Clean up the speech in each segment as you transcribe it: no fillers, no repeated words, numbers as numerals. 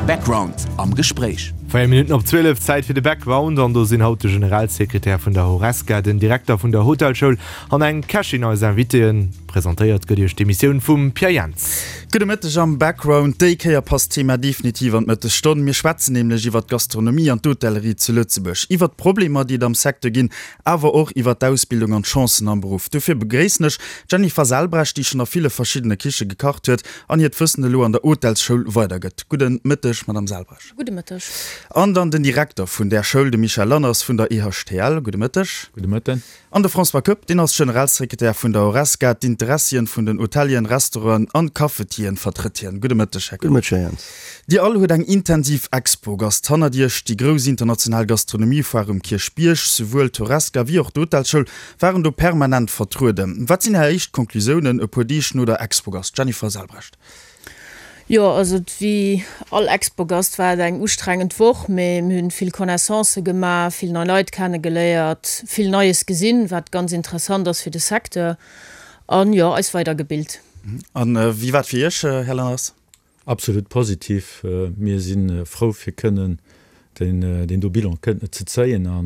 Background am Gespréich. 4 Minutten op 12, Zäit fir de Background an do sinn haut de Generalsekretär vun der Horesca, den Direkter vun der Hotelschoul an eng Kächin eis Invitéen. Presentéiert gëtt iech d'Emissioun vum Pierre Jentz. Gudde Mëtteg am Background. Déi Kéier passt d'Thema definitiv an d'Mëttesstonn. Mir schwätzen nämlech iwwer d'Gastronomie an d'Hotellerie zu Lëtzebuerg, iwwer d'Problemer, déi et am Secteur ginn, awer och iwwer d'Ausbildung an d'Chancen am Beruff. Dofir begréissen ech d'Jennifer Selbrecht, déi schonn a ville verschiddene Kiche gekacht huet an hiert Wëssen elo an der Hotelsschoul weidergëtt. Gudde Mëtteg, Madame Selbrecht. Gudde Mëtteg. An dann den Direkter vun där Schoul, de Michel Lanners vun der EHTL. Gudde Mëtteg. Gudde Mëtten. An de François Koepp, deen ass Generalsekretär vun der Horesca. D'Interessien vun den Hotelieren, Restauranten an Cafetieren vertrëtt hien. Gudde Mëtteg, Här Koepp. Gudde Mëtteg, Här Jentz. Dir all huet eng intensiv Expogast hannert Iech, déi grouss international Gastronomiefoire um Kierchbierg. Souwuel d'Horesca wéi och d'Hotelschoul waren do permanent vertrueden. Wat sinn Är éischt Conclusiounen e puer Deeg no der Expogast? Jennifer Selbrecht. Jo, also wéi all Expogast war et eng ustrengend Woch, mee mir hunn vill Connaissancë gemaach, vill nei Leit kennegeléiert, vill Neies gesinn, wat ganz interessant ass fir de Secteur an jo, eis weidergebilt. An wéi war et fir Iech, Här Lanners? Absolut positiv. Mir si frou fir kënnen deen do Bilan kënnen ze zéien a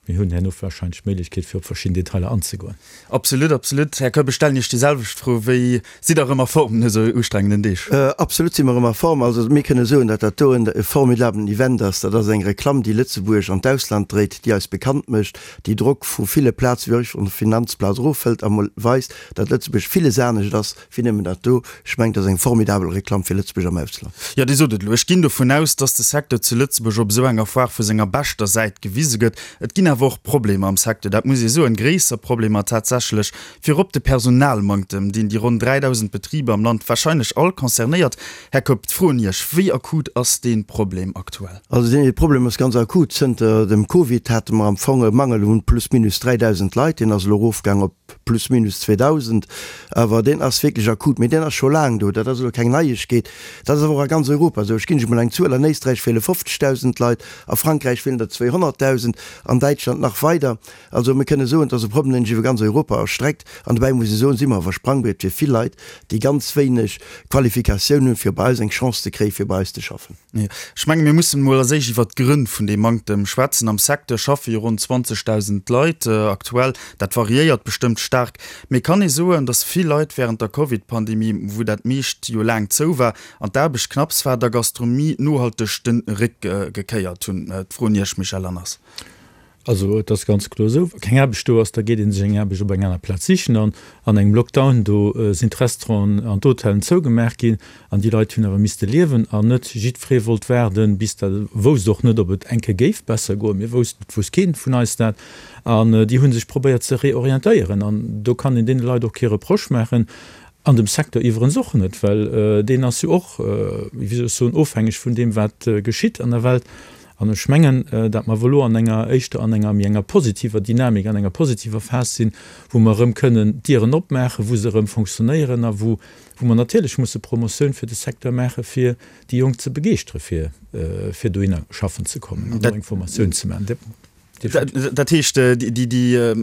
mir hunn herno wahrscheinlech d'Méiglechkeet fir op verschidden Detailer anzegoen. Absolut, absolut. Här Koepp, ech stellen Iech déi selwecht Fro. Wéi sidd Der erëm a Form no esou ustrengenden Deeg? Absolut si mer erëm a Form. Also mir kënne soen, datt dat do e formidablen Event ass. Dat ass eng Reklamm, déi Lëtzebuerg an d'Ausland dréit, déi eis bekannt mécht, déi Drock vu ville Plaze wéi och vun der Finanzplaz erofhëlt a mol weist, datt Lëtzebuerg villes anescht ass Wéi nëmmen dat do. Ech mengen, dat ass eng formidabel Reklamm fir Lëtzebuerg am Ausland. Jo, Dir sot et elo. Ech ginn dovun aus, dass de Secteur zu Lëtzebuerg op esou enger Foire vu senger beschter Säit gewise gëtt. Et ginn awer och Problemer am Secteur, dat muss ee soen, gréisser Problemer tatsächlech. Virop de Personalmanktem, deen déi ronn 3.000 Betriber am Land warscheinlech all concernéiert. Här Koepp, d'Fro un Iech, Wéi akut ass dee Problem aktuell? Also dee Problem ass ganz akut. Zënter dem Covid hate mer am Fong e Mangel un plus minus 3.000 Leit. Deen ass elo erofgaang op plus minus 2.000, awer deen ass wierklech akut, mee deen ass scho laang do, dat ass elo keng Neiegkeet, dat ass awer och a ganz Europa esou. Ech ginn lech emol eng Zuel, An Éisträich feele 50.000 Leit, a Frankräich feelen der 200.000, an Däitschland nach weider. Also mir kënne soen, et ass e Problem, deen sech iwwer ganz Europa erstreckt. An dobäi muss ee soen, si mer awer Sprangbriet fir vill Leit, déi ganz wéineg Qualifikatioun hunn, fir bei eis eng Chance ze kréien, fir bei eis ze schaffen. Ech menge mir mussen emol als éischt iwwert d'Grënn vun deem Manktem schwätzen. Am Secteur schaffe jo ronn 20.000 Leit aktuell. Dat variéiert bestëmmt staark. Mee kann ee soen, datt vill Leit wärend der Covid-Pandemie, wou dat meescht jo laang zou war an d'Aarbecht knapps war, der Gastronomie nohalteg de Réck gekéiert hunn? D'Fro un Iech, Michel Lanners. Also et ass ganz kloer esou, wa keng Aarbecht do ass, da geet ee sech eng Aarbecht op eng aner Plaz sichen. An an engem Lockdown, do sinn d'Restauranten an d'Hotellen zougemaach ginn an déi Leit hunn awer misste liewen an net jiddweree wollt waarden, bis dat, wousst och net, ob et eng Kéier géif besser goen. Mir woussten, et wousst kee vun eis dat. An déi hu sech probéiert ze reorientéieren an do kann een deene Leit och kee Reproche maachen an dem Secteur iwwerens och net, well deen ass jo och, wéi soll ech soen, ofhängeg vun deem, wat geschitt an der Welt. An ech mengen, datt mer elo an enger, éischter an enger méi enger positiver Dynamik, an enger positiver Phas sinn, wou mer erëm kënnen d'Dieren opmaachen, wou se erëm fonctionnéieren a wou, wou mer natierlech musse Promotioun fir de Secteur maachen, fir déi Jonk ze begeeschtere fir, fir dohinner schaffen ze kommen an do eng Formatioun ze maachen. Dat heescht, déi, déi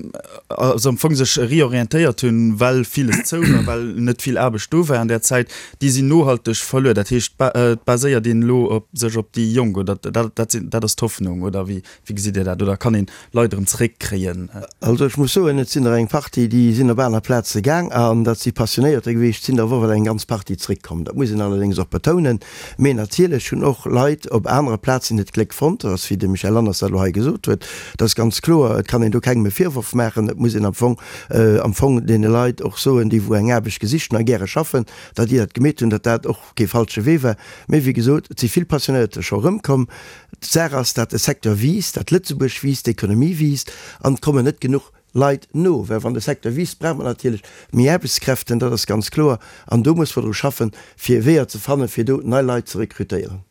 also am Fong sech reorientéiert hunn, well villes zou war, well net vill Aarbecht do war an där Zäit, déi sinn nohalteg verluer. Dat heescht, et baséiert een elo op sech op déi Jonk, oder dat sinn, dat ass d'Hoffnung, oder wéi, wéi gesitt Dir dat? Oder kann een Leit erëm zeréckkréien? Also ech muss soen, et sinn der eng Partie, déi sinn op aner Plaze gaang an dat si Passionéierter gewiescht, et sinn der awer och eng ganz Partie zeréckkomm. Dat muss een allerdéngs och betounen. Mee natierlech hunn och Leit op anere Plazen hiert Gléck fonnt, dat ass wéi de Michel Lanners dat elo hei gesot huet, dat ass ganz kloer. Et kann een do kengem e Virworf maachen. Et muss een am Fong am Fong deene Leit och soen, déi wou eng Aarbecht gesicht hunn a gäre schaffen, datt déi dat gemeet hunn, datt dat och kee falsche Wee war. Mee wéi gesot, et si vill Passionéierter scho erëmkomm. D'Saach ass, datt de Secteur wiisst, datt Lëtzebuerg wiisst, d'Ekonomie wiisst an et kommen net genuch Leit no, well wann de Secteur wiisst, brauch mer natierlech méi Aarbechtskräften, dat ass ganz kloer. An do muss mer dru schaffen, fir Weeër ze fannen, fir do nei Leit ze rekrutéieren.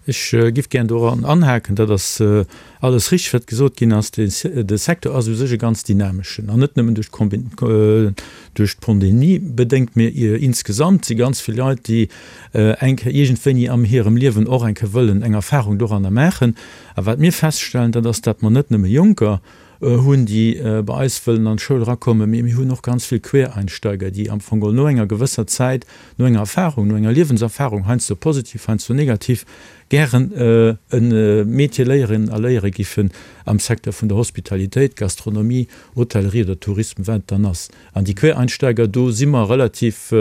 Ech giff gären doran anhaken, dat ass alles richteg, wat gesot ginn ass. De Secteur ass u sech e ganz dynameschen, an net nëmmen duerch d'Pandemie bedéngt, mee insgesamt si ganz vill Leit, déi eng Kéier iergendwéini am hirem Liewen och eng Kéier wëllen eng Erfahrung doranner maachen. A wat mir feststellen, dat ass, datt mer net nëmme Jonker. hunn, déi bei eis wëllen an d'Schoul erakommen, mee mir hunn och ganz vill Quereinsteiger, déi am Fong geholl no enger gewësser Zäit, no enger Erfahrung, no enger Liewenserfahrung, heiansdo positiv, heiansdo negativ, gären e Métier léieren a léiere giffen am Secteur vun der Hospitalitéit, Gastronomie, Hotellerie oder Tourisme, wat et dann ass. An déi Quereinsteiger, do si mer relativ,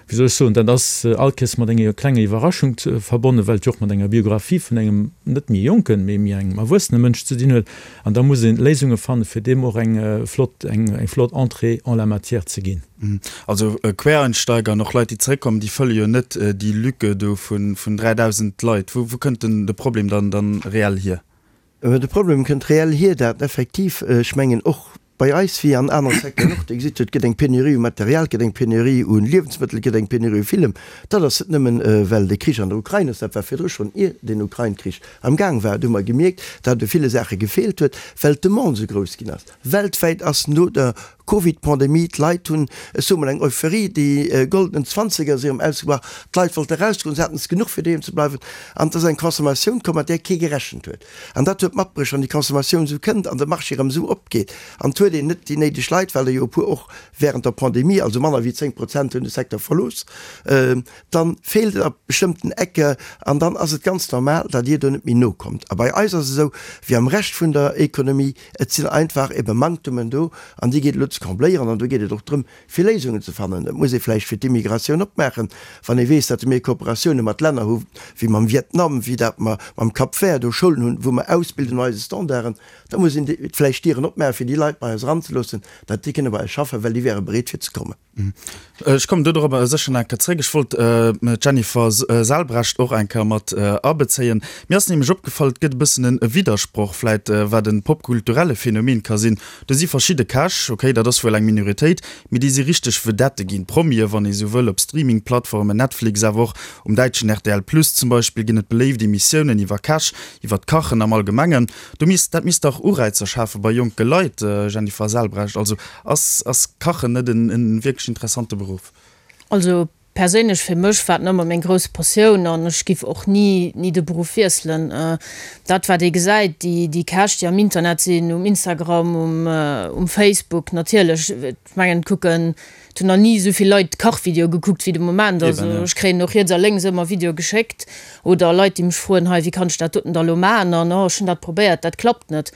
wéi soll ech soen, dat ass all Kéiers mat enger klenger Iwwerraschung verbonnen, well et jo och mat enger Biographie vun engem net méi jonken, mee méi engem erwuessene Mënsch ze dinn huet. An da muss ee Léisunge fannen, fir deem och eng flott, eng flott Entrée en la matière ze ginn. Also Quereinsteiger an och Leit, déi zeréckkommen, déi fëlle jo net déi Lücke do vun 3.000 Leit. Wou kënnt denn de Problem dann dann reell hier? De Problem kënnt reell hier, dat effektiv, ech mengen och bei eis wéi an anere Secteuren och, Dir gesitt jo, et gëtt eng Penurie u Material, et gëtt eng Penurie u Liewensmëttel, et gëtt eng Penurie u villem. Dat ass net nëmmen, well de Krich an der Ukrain ass, dat war virdru schonn, ier den Ukrain-Krich am Gaang war. Do hu mer gemierkt, datt et u ville Saache gefeelt huet, well d'Demande esou grouss ginn ass. Weltwäit ass no der Covid-Pandemie, d'Leit hunn, ech soe mol eng Euphorie, déi goldenen Zwanzeger si erëm ausgebrach, d'Leit wollte erausgoen, se haten es genuch fir doheem ze bleiwen an et ass eng Consommatioun komm, mat där kee gerechent huet. An dat huet matbruecht, wann déi Consommatioun esou kënnt an de Marché erëm esou opgeet an et huet een net déi néideg Leit, well der jo e puer och während der Pandemie, also manner wéi 10 Prozent hunn de Secteur verlooss, dann feelt et a bestëmmten Ecke an dann ass et ganz normal, datt Dir do net méi nokommt. A bei eis ass et esou wéi am Rescht vun der Économie, Et sinn einfach ebe Manktemen do an déi geet elo ze combléieren. An do geet et och drëm, fir Léisungen ze fannen. Et muss ee vläicht fir d'Immigratioun opmaachen, wann ee weess, datt mir Kooperatioune mat Länner hu wéi mam Vietnam, wéi dat mer mam Cap Vert do Schoulen hunn, wou mer ausbilden no eise Standarden. Da muss een vläicht d'Dieren opmaachen, fir déi Leit bei eis eranzeloossen, datt déi kënne bei eis schaffen, well déi wäre bereet fir ze kommen. Ech kommen do dorobber sécher nach eng Kéier zréck. Ech wollt d'Jennifer Selbrecht och eng Kéier mat abezéien. Mir ass nämlech opgefall, et gëtt e bëssen e Widdersproch vläit, wat e popkulturelle Phänomen ka sinn. Do si verschidde Käch, okay, dat ass wuel eng Minoritéit, mee déi si richteg Vedette ginn, Promie wann ee sou wëll, op Streaming-Plattformen, Netflix, awer och um däitschen rtl Plus zum Beispill ginn et beléift Emissiounen iwwer Käch, iwwer d'Kachen am Allgemengen. Do misst, dat misst dach Ureizer schafe bei jonke Leit, Jennifer Selbrecht. Also Ass ass Kachen net en en wierklech interessante Beruff? Also perséinlech fir mech war et nëmmer meng grouss Passioun an ech giff och ni ni de Beruff wiesselen. Dat wat ee gesäit, déi déi Käch déi am Internet sinn, um Instagram, um um Facebook natierlech, ech mengen et kucken, et hunn nach ni esou vill Leit Kachvideoe gekuckt wéi de Moment. Also ech kréien och riets a lénks ëmmer Videoe geschéckt oder Leit déi mech froen, hei wéi kann ech dat doten da lo maachen an oh ech hunn dat probéiert, dat klappt net.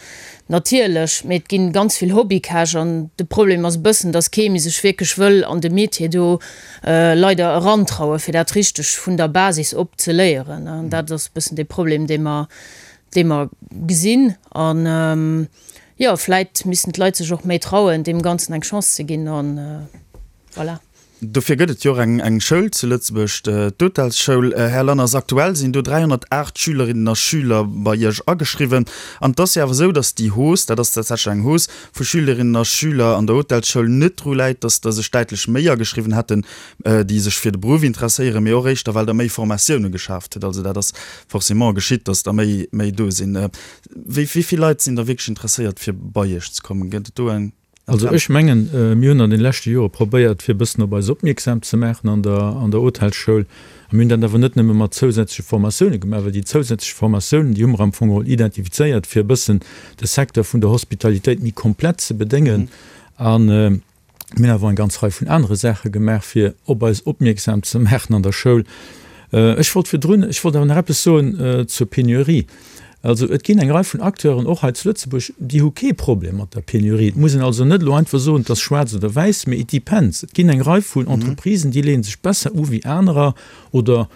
Natierlech, mee et ginn ganz vill Hobbykäch an de Problem ass e bëssen, dass kee méi sech wierklech wëll an de Metier do leider erantrauen, fir dat richteg vun der Basis op ze léieren. An dat ass e bëssen de Problem, dee mer, dee mer gesinn. An jo, vläit missten d'Leit sech och méi trauen, deem Ganzen eng Chance ze ginn an voilà. Dofir gëtt et jo och eng Schoul zu Lëtzebuerg, d'Hotelsschoul. Här Lanners, aktuell sinn do 308 Schülerinnen a Schüler bei Iech ageschriwwen. An et ass jo awer esou, datt déi Hausse, dat ass tatsächlech eng Hausse vu Schülerinnen a Schüler an der Hotelsschoul, net dru läit, datt der sech däitlech méi ageschriwwen hätten, déi sech fir de Beruff interesséieren, mee och éischter, well Der méi Formatioune geschaaft hutt. Also dat ass forcément geschitt, datt der méi méi do sinn. Wéi vill Leit sinn da wierklech interesséiert, fir bei Iech ze kommen? Gëtt et do eng? Also ech mengen, mir hunn an den leschte Jore probéiert, fir e bëssen op eis opmierksam ze maachen an der an der Hotelsschoul. A mir hunn dat awer net nëmme mat zousätzleche Formatioune gemaach, well déi zousätzlech Formatiounen, déi hu mer am Fong geholl identifizéiert, fir e bëssen de Secteur vun der Hospitalitéit méi komplett ze bedéngen. A mir hunn awer eng ganz Rei vun anere Saache gemaach, fir op eis opmierksam ze maachen an der Schoul. Ech wollt virdrun, ech wollt awer nach eppes soen zur Penurie. Also et ginn eng Rei vun Acteuren, och hei zu Lëtzebuerg, déi hu kee Problem mat der Penurie. Et muss een also net elo einfach soen, et ass schwaarz oder wäiss, mee it depends. Et ginn eng Rei vun Entreprisen, déi leeë sech besser u wéi anerer oder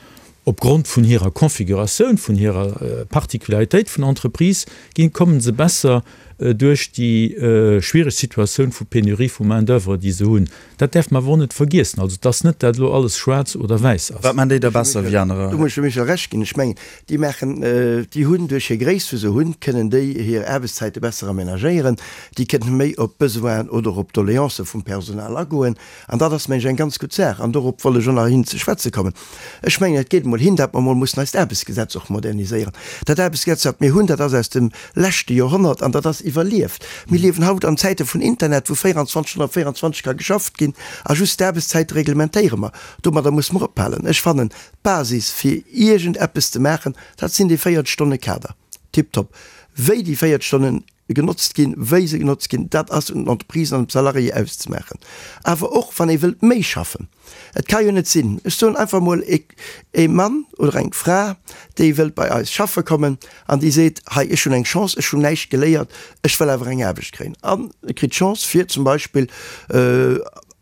opgrond vun hirer Configuratioun, vun hirer Particularitéit vun Entreprise ginn, kommen se besser duerch déi schwiereg Situatioun vu Penurie vu Main d'oeuvre, déi se hunn. Dat däerf mer awer och net vergiessen. Also et ass net, dat elo alles schwaarz oder wäiss ass. Wat maan déi da besser wéi anerer? Do muss ech dem Michel Recht ginn. Ech mengen, déi maachen, déi hunn duerch hir Gréisst, wou se hunn, kënnen déi hir Aarbechtszäite besser aménagéieren. Déi kënnen méi op d'Besoinen oder op d'Doléancë vum Personal agoen. An dat ass, mengen ech, eng ganz gutt Saach. An dorop wollt ech och nach hin ze schwätze kommen. Ech mengen, et geet emol hin, datt mer emol mussen eist Aarbechtsgesetz och moderniséieren. Dat Aarbechtsgesetz, wat mir hunn, dat ass aus dem leschte Joerhonnert an dat ass iwwerlieft. Mir liewen haut an Zäite vun Internet, wou 24 Stonnen op 24 ka geschafft ginn a just d'Aarbechtszäite reglementéiere mer. Domadder musse mer ophalen. Ech fannen, d'Basis fir iergend eppes ze maachen, dat sinn déi 40 Stonne Kader. Tiptop. Wéi déi 40 Stonnen genotzt ginn, wéi se genotzt ginn, dat ass un den Entreprisen an dem Salarié auszemaachen. Awer och wann ee wëllt méi schaffen. Et ka jo net sinn, ech soen einfach emol, ee Mann oder eng Fra, déi wëllt bei eis schaffe kommen an déi seet, hei ech hunn eng Chance, ech hunn näischt geléiert, ech wëll awer eng Aarbecht kréien an e kritt d'Chance fir zum Beispill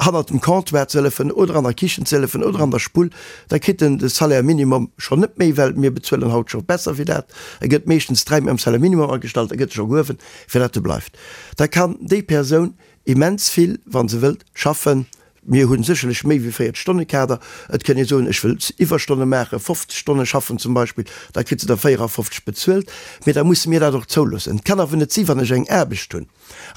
hannert dem Comptoir ze hëllefen oder an der Kichen ze hëllefen oder an der Spull, da kritt en de Salaire minimum schonn net méi, well mir bezuelen haut scho besser wéi dat. E gëtt meeschtens dräi méi am Salaire minimum agestallt, e gëtt scho gehuewen, fir dat e bleift. Da kann déi Persoun immens vill, wa se wëllt, schaffen. Mir hu sécherlech méi wéi 40 Stonne Kader. Et kënn ee soen, ech wëll Iwwerstonne maachen, 50 Stonne schaffen zum Beispill, da kritt se der 54 bezuelt. Mee da musse mir dat och zouloossen. Et kann awer net si wann ech eng Aarbecht hunn,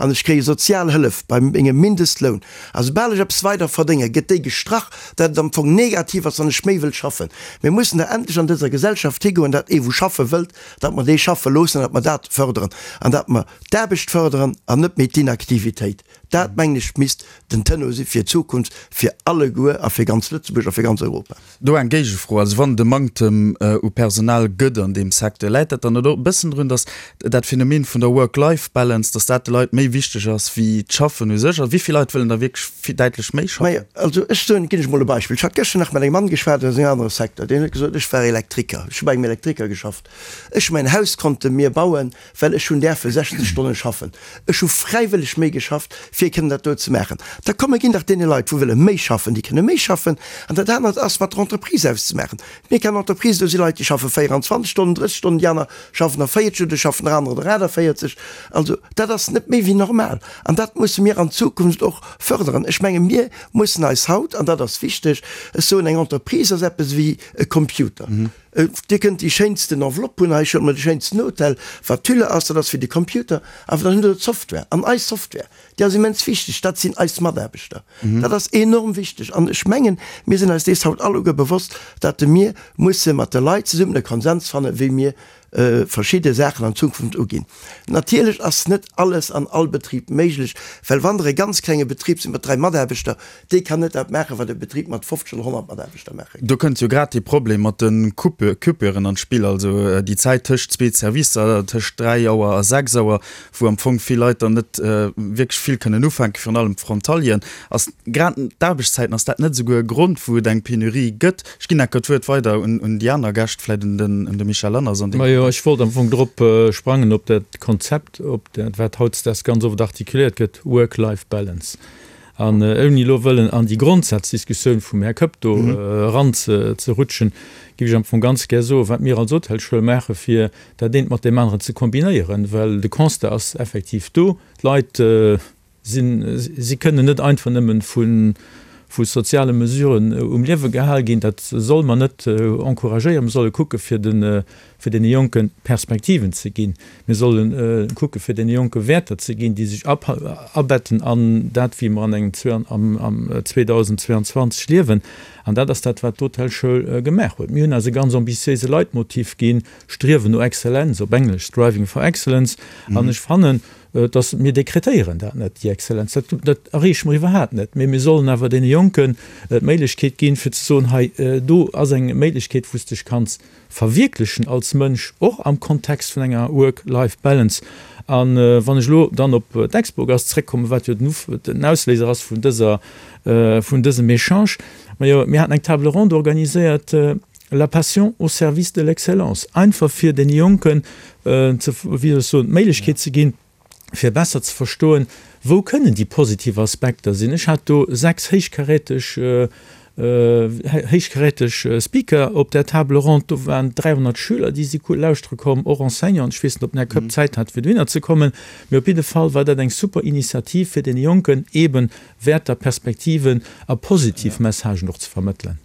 an ech kréie sozial Hëllef bei mengem Mindestloun, a soubal ech eppes weider verdénge gëtt déi gestrach, dat et am Fong negativ ass, wann ech méi wëll schaffen. Mir mussen da endlech an dëser Gesellschaft higoen, dat ee wou schaffe wëllt, datt mer dee schaffe loossen, datt mer dat fërderen an datt mer d'Aarbecht fërderen an net méi d'Inaktivitéit. Dat, mengen ech, misst den Tenor si fir d'Zukunft, fir alleguer a fir ganz Lëtzebuerg a fir ganz Europa. Do eng Géigefro, Also wann et e Manktem u Personal gëtt an deem Secteur, läit dat dann net och e bëssen drun, datt dat Phänomen vun der Work-Life-Balance, datt dat de Leit méi wichteg ass wéi d'Schaffen u sech? Also wéi vill Leit wëllen da wierklech däitlech méi schaffen? Majo, also ech soen, ginn ech mol e Beispill. Ech hat gëschter nach mat engem Mann geschwat aus engem anere Secteur, deen huet gesot, ech war Elektriker, ech hu bei engem Elektriker geschafft, ech hu mäin Haus konnte mir bauen, well ech hunn däerfe 60 Stonne schaffen. Ech hu fräiwëlleg méi geschafft, fir kënnen dat do ze maachen. Da komm, mir ginn dach deene Leit, wou wëlle méi schaffen, déi kënne méi schaffen. An dat anert ass mat der Entreprise auszemaachen. Mir kennen Entreprisen, do si Leit, déi schaffe 24 Stonnen, 30 Stonnen, déi aner schaffen der 40 oder schaffen der anerer der 48. Also dat ass net méi wéi normal. An dat musse mir an Zukunft och fërderen. Ech menge mir mussen eis haut, an dat ass wichteg, ech soen, eng Entreprise ass eppes ewéi e Computer. Dir kënnt déi schéinsten Enveloppe hunn, hei huet mer de schéinsten Hotel, wat d'Hülle ass, dat ass fir de Computer, awer dann hutt Der d'Software. An eis Software, déi ass immens wichteg, dat sinn eis Mataarbechter. Dat ass enorm wichteg. An ech mengen, mir sinn eis dees haut alleguer bewosst, datt mir musse mat de Leit zesummen e Konsens fannen, wéi mir verschidde Saachen an Zukunft uginn. Natierlech ass net alles an all Betrib méiglech, well wann Der e ganz klenge Betrib sidd mat 3 Mataarbechter, dee kann net dat maachen, wat e Betrib mat 50 oder 100 Mataarbechter maache kann. Do kënnt jo grad dee Problem mat de Coupuren an d'Spill, also déi Zäit tëscht zwee Servicer, tëscht 3 Auer a 6 Auer, wou am Fong vill Leit dann net wierklech vill kënnen ufänken, virun allem d'Frontalieren. Ass grad d'Aarbechtszäiten, ass dat net esouguer e Grond, wou et eng Penurie gëtt? Ech ginn enker d'Wuert weider un déi aner Gäscht, vläicht un de Michel Lanners an deem Majo, ech wollt am Fong drop sprangen, op dat Konzept, op dat, wat hautdesdaags ganz oft artikuléiert gëtt, Work-Life-Balance. An ouni elo wëllen an déi Grondsazdiskussioun vum Här Koepp do eranzerutschen, géif ech am Fong ganz gär soen, wat mir als Hotelschoul maache fir dat eent mat deem aneren ze kombinéieren, well de Constat ass effektiv do, d'Leit sinn, si kënnen net einfach nëmmen vu vu soziale Mesuren um Liewe gehal ginn. Dat solle mer net encouragéieren. Mir solle kucke fir de fir deene Jonke Perspektiven ze ginn. Mir solle kucke fir deene Jonke Wäerter ze ginn, déi sech abetten an dat wéi mer an engem am 2022 liewen. An dat ass dat wat d'Hotelschoul gemaach huet. Mir hunn eis e ganz ambitiéise Leitmotiv ginn, Striewen no Exzellenz, op Englesch Striving for Excellence. An ech fannen, dass mir dekretéieren dat net, déi Exzellenz, dat, dat erreeche mer iwwerhaapt net, mee mir sollen awer deene Jonken d'Méiglechkeet ginn, fir ze soen, hei do ass eng Méiglechkeet, wou s de dech kanns verwierklechen als Mënsch, och am Kontext vun enger Work-Life-Balance. A wann ech elo dann op d'Expogast zréckkommen, wat jo den Ausléiser ass vun dëser, vun dësem Echange, majo, mir haten eng Table ronde organiséiert, La passion au service de l'excellence, einfach fir deene Jonken ze, wéi soll ech soen, d'Méiglechkeet ze ginn, fir besser ze verstoen, wou kënnen déi positiv Aspekter sinn. Ech hat do 6 héichkaräteg, héichkaräteg Speaker op där Table ronde. Do waren 300 Schüler, déi si lauschtere komm, och Enseignanten. Ech weess net, ob den Här Koepp Zäit hat, fir dohinner ze kommen, mee op jidde Fall war dat eng super Initiativ, fir deene Jonken eeben Wäerter, Perspektiven a positiv Messagen och ze vermëttelen.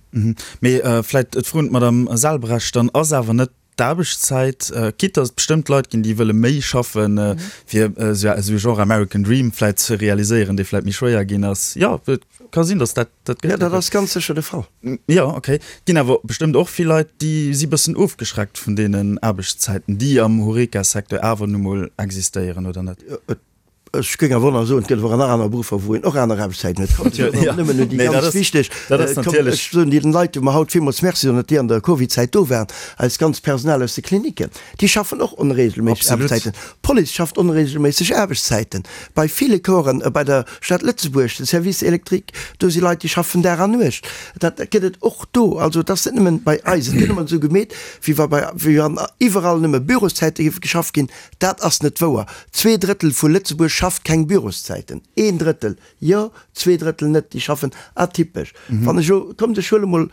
Mee vläicht d'Fro un d'Madame Selbrecht dann, Ass awer net d'Aarbechtszäit, quitte datt et bestëmmt Leit ginn, déi wëlle méi schaffen, fir esou e Genre American Dream vläicht ze realiséieren, dee vläicht méi schwéier ginn ass? Jo, et ka sinn, datt dat dat gëtt. Jo, dat ass ganz sécher de Fall. Jo, okay. Et ginn awer bestëmmt och vill Leit, déi si bëssen ofgeschreckt vun deenen Aarbechtszäiten, déi am Horeca-Secteur awer nu mol existéieren, oder net? Et. Ech géing awer och nach soen, et gëtt awer nach aner Beruffer, wou een och aner Aarbechtszäiten huet. Kommt, ech soen och nëmmen un déi ganz wichteg, kommt, ech soen deenen Leit, wou mer haut villmools Merci soen, datt déi an der Covidzäit do waren, eist ganzt Personal aus de Klinicken, déi schaffen och onregelméisseg Aarbechtszäiten. D'Police schafft onregelméisseg Aarbechtszäiten. Bei ville Corpsen, bei der Stad Lëtzebuerg, de Service électrique, do si Leit, déi schaffen Dag an Nuecht. Dat gëtt et och do. Also et ass net nëmmen bei eis. Et gëtt ëmmer esou gemeet, wéi wa bei, wéi wann iwwerall nëmme Büroszäite géife geschafft ginn. Dat ass net wouer. Zweedrëttel vu Lëtzebuerg schafft keng Büroszäiten. Een Drëttel jo, zweedrëttel net. Déi schaffen atypesch. Wann ech elo, kommt ech huele mol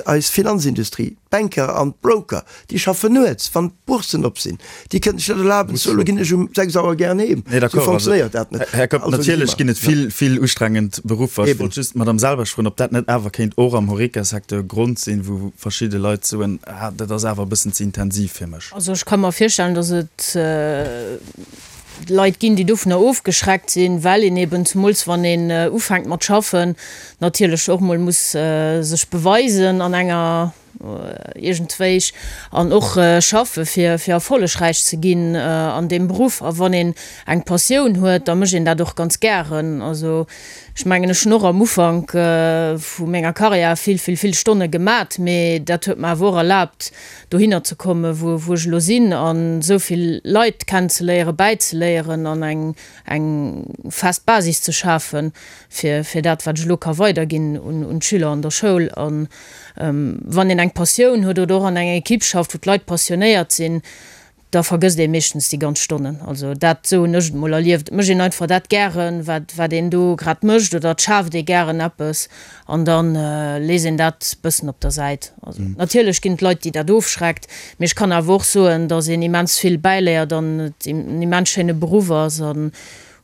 eis Finanzindustrie, d'Banker an d'Broker, déi schaffen nuets, wann d'Bourssen op sinn. Déi kënnen sech net erlaben ze soen, elo ginn ech um 6 Auer gären heem. Esou fonctionnéiert dat net. Här Kopp, natierlech ginn et vill, vill ustrengend Beruffer. Ech wollt just d'Madame Selbach froen, ob dat net awer kéint och am Horeca-Secteur e Grond sinn, wou verschidde Leit soen, ah, dat ass awer e bëssen ze intensiv fir mech. Also ech ka mer virstellen, datt et Leit ginn, déi dovunner ofgeschreckt sinn, well een eben, zemools wann een ufänkt mat schaffen, natierlech och mol muss sech beweisen an enger iergendwéi an och schaffe fir fir erfollegräich ze ginn an deem Beruff. A wann een eng Passioun huet, da mécht een dat och ganz gären. Also ech mengen, ech hunn och am Ufank vu menger Karriär vill, vill, vill Stonne gemat, mee dat huet mer awer och erlaabt, dohinner ze kommen, wou wou ech elo sinn, an esou vill Leit kennenzeléieren, bäizeléieren an eng eng fest Basis ze schafen, fir fir dat, wat ech elo ka weiderginn un un d'Schüler an der Schoul. An wann een eng Passioun huet oder och an enger Equipe schafft, wou d'Leit passionéiert sinn, da vergësst ee meeschtens déi ganz Stonnen. Also dat, esou hunn ech et mol erlieft. Et mécht een einfach dat gären, wat, wat een do grad mécht oder et schaaft ee gären eppes an da léisst een dat bëssen op der Säit. Also natierlech ginn et Leit, déi dat ofschreckt, mee ech kann awer och soen, datt een immens vill bäiléiert an et en immens schéine Beruff ass an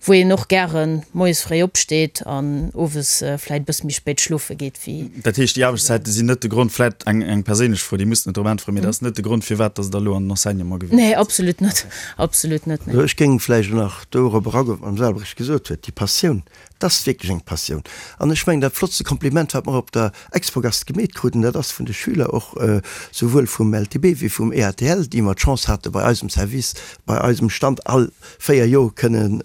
wou een och gären moies fréi opsteet an owes vläit e bësse méi spéit schlofe geet wéi. Dat heescht, déi Aarbechtszäite sinn net de Grond, vläit eng eng perséinlech Fro, déi musst net drop äntweren, mee dat ass net de Grond, firwat datt Der elo an den Enseignement gewiesselt Nee, absolut net, absolut net, nee. Ech géing vläicht nach dorop eragoen, wat d'Madame Selbrecht gesot huet, déi Passioun, Et ass wierklech eng Passioun. An ech mengen, dat flottste Kompliment, wat mer op der Expogast gemeet kruten, dat ass vun de Schüler och, souwuel vum LTB wéi vum EATL, déi mer d'Chance hate bei eisem Service, bei eisem Stand all 4 Joer kënnen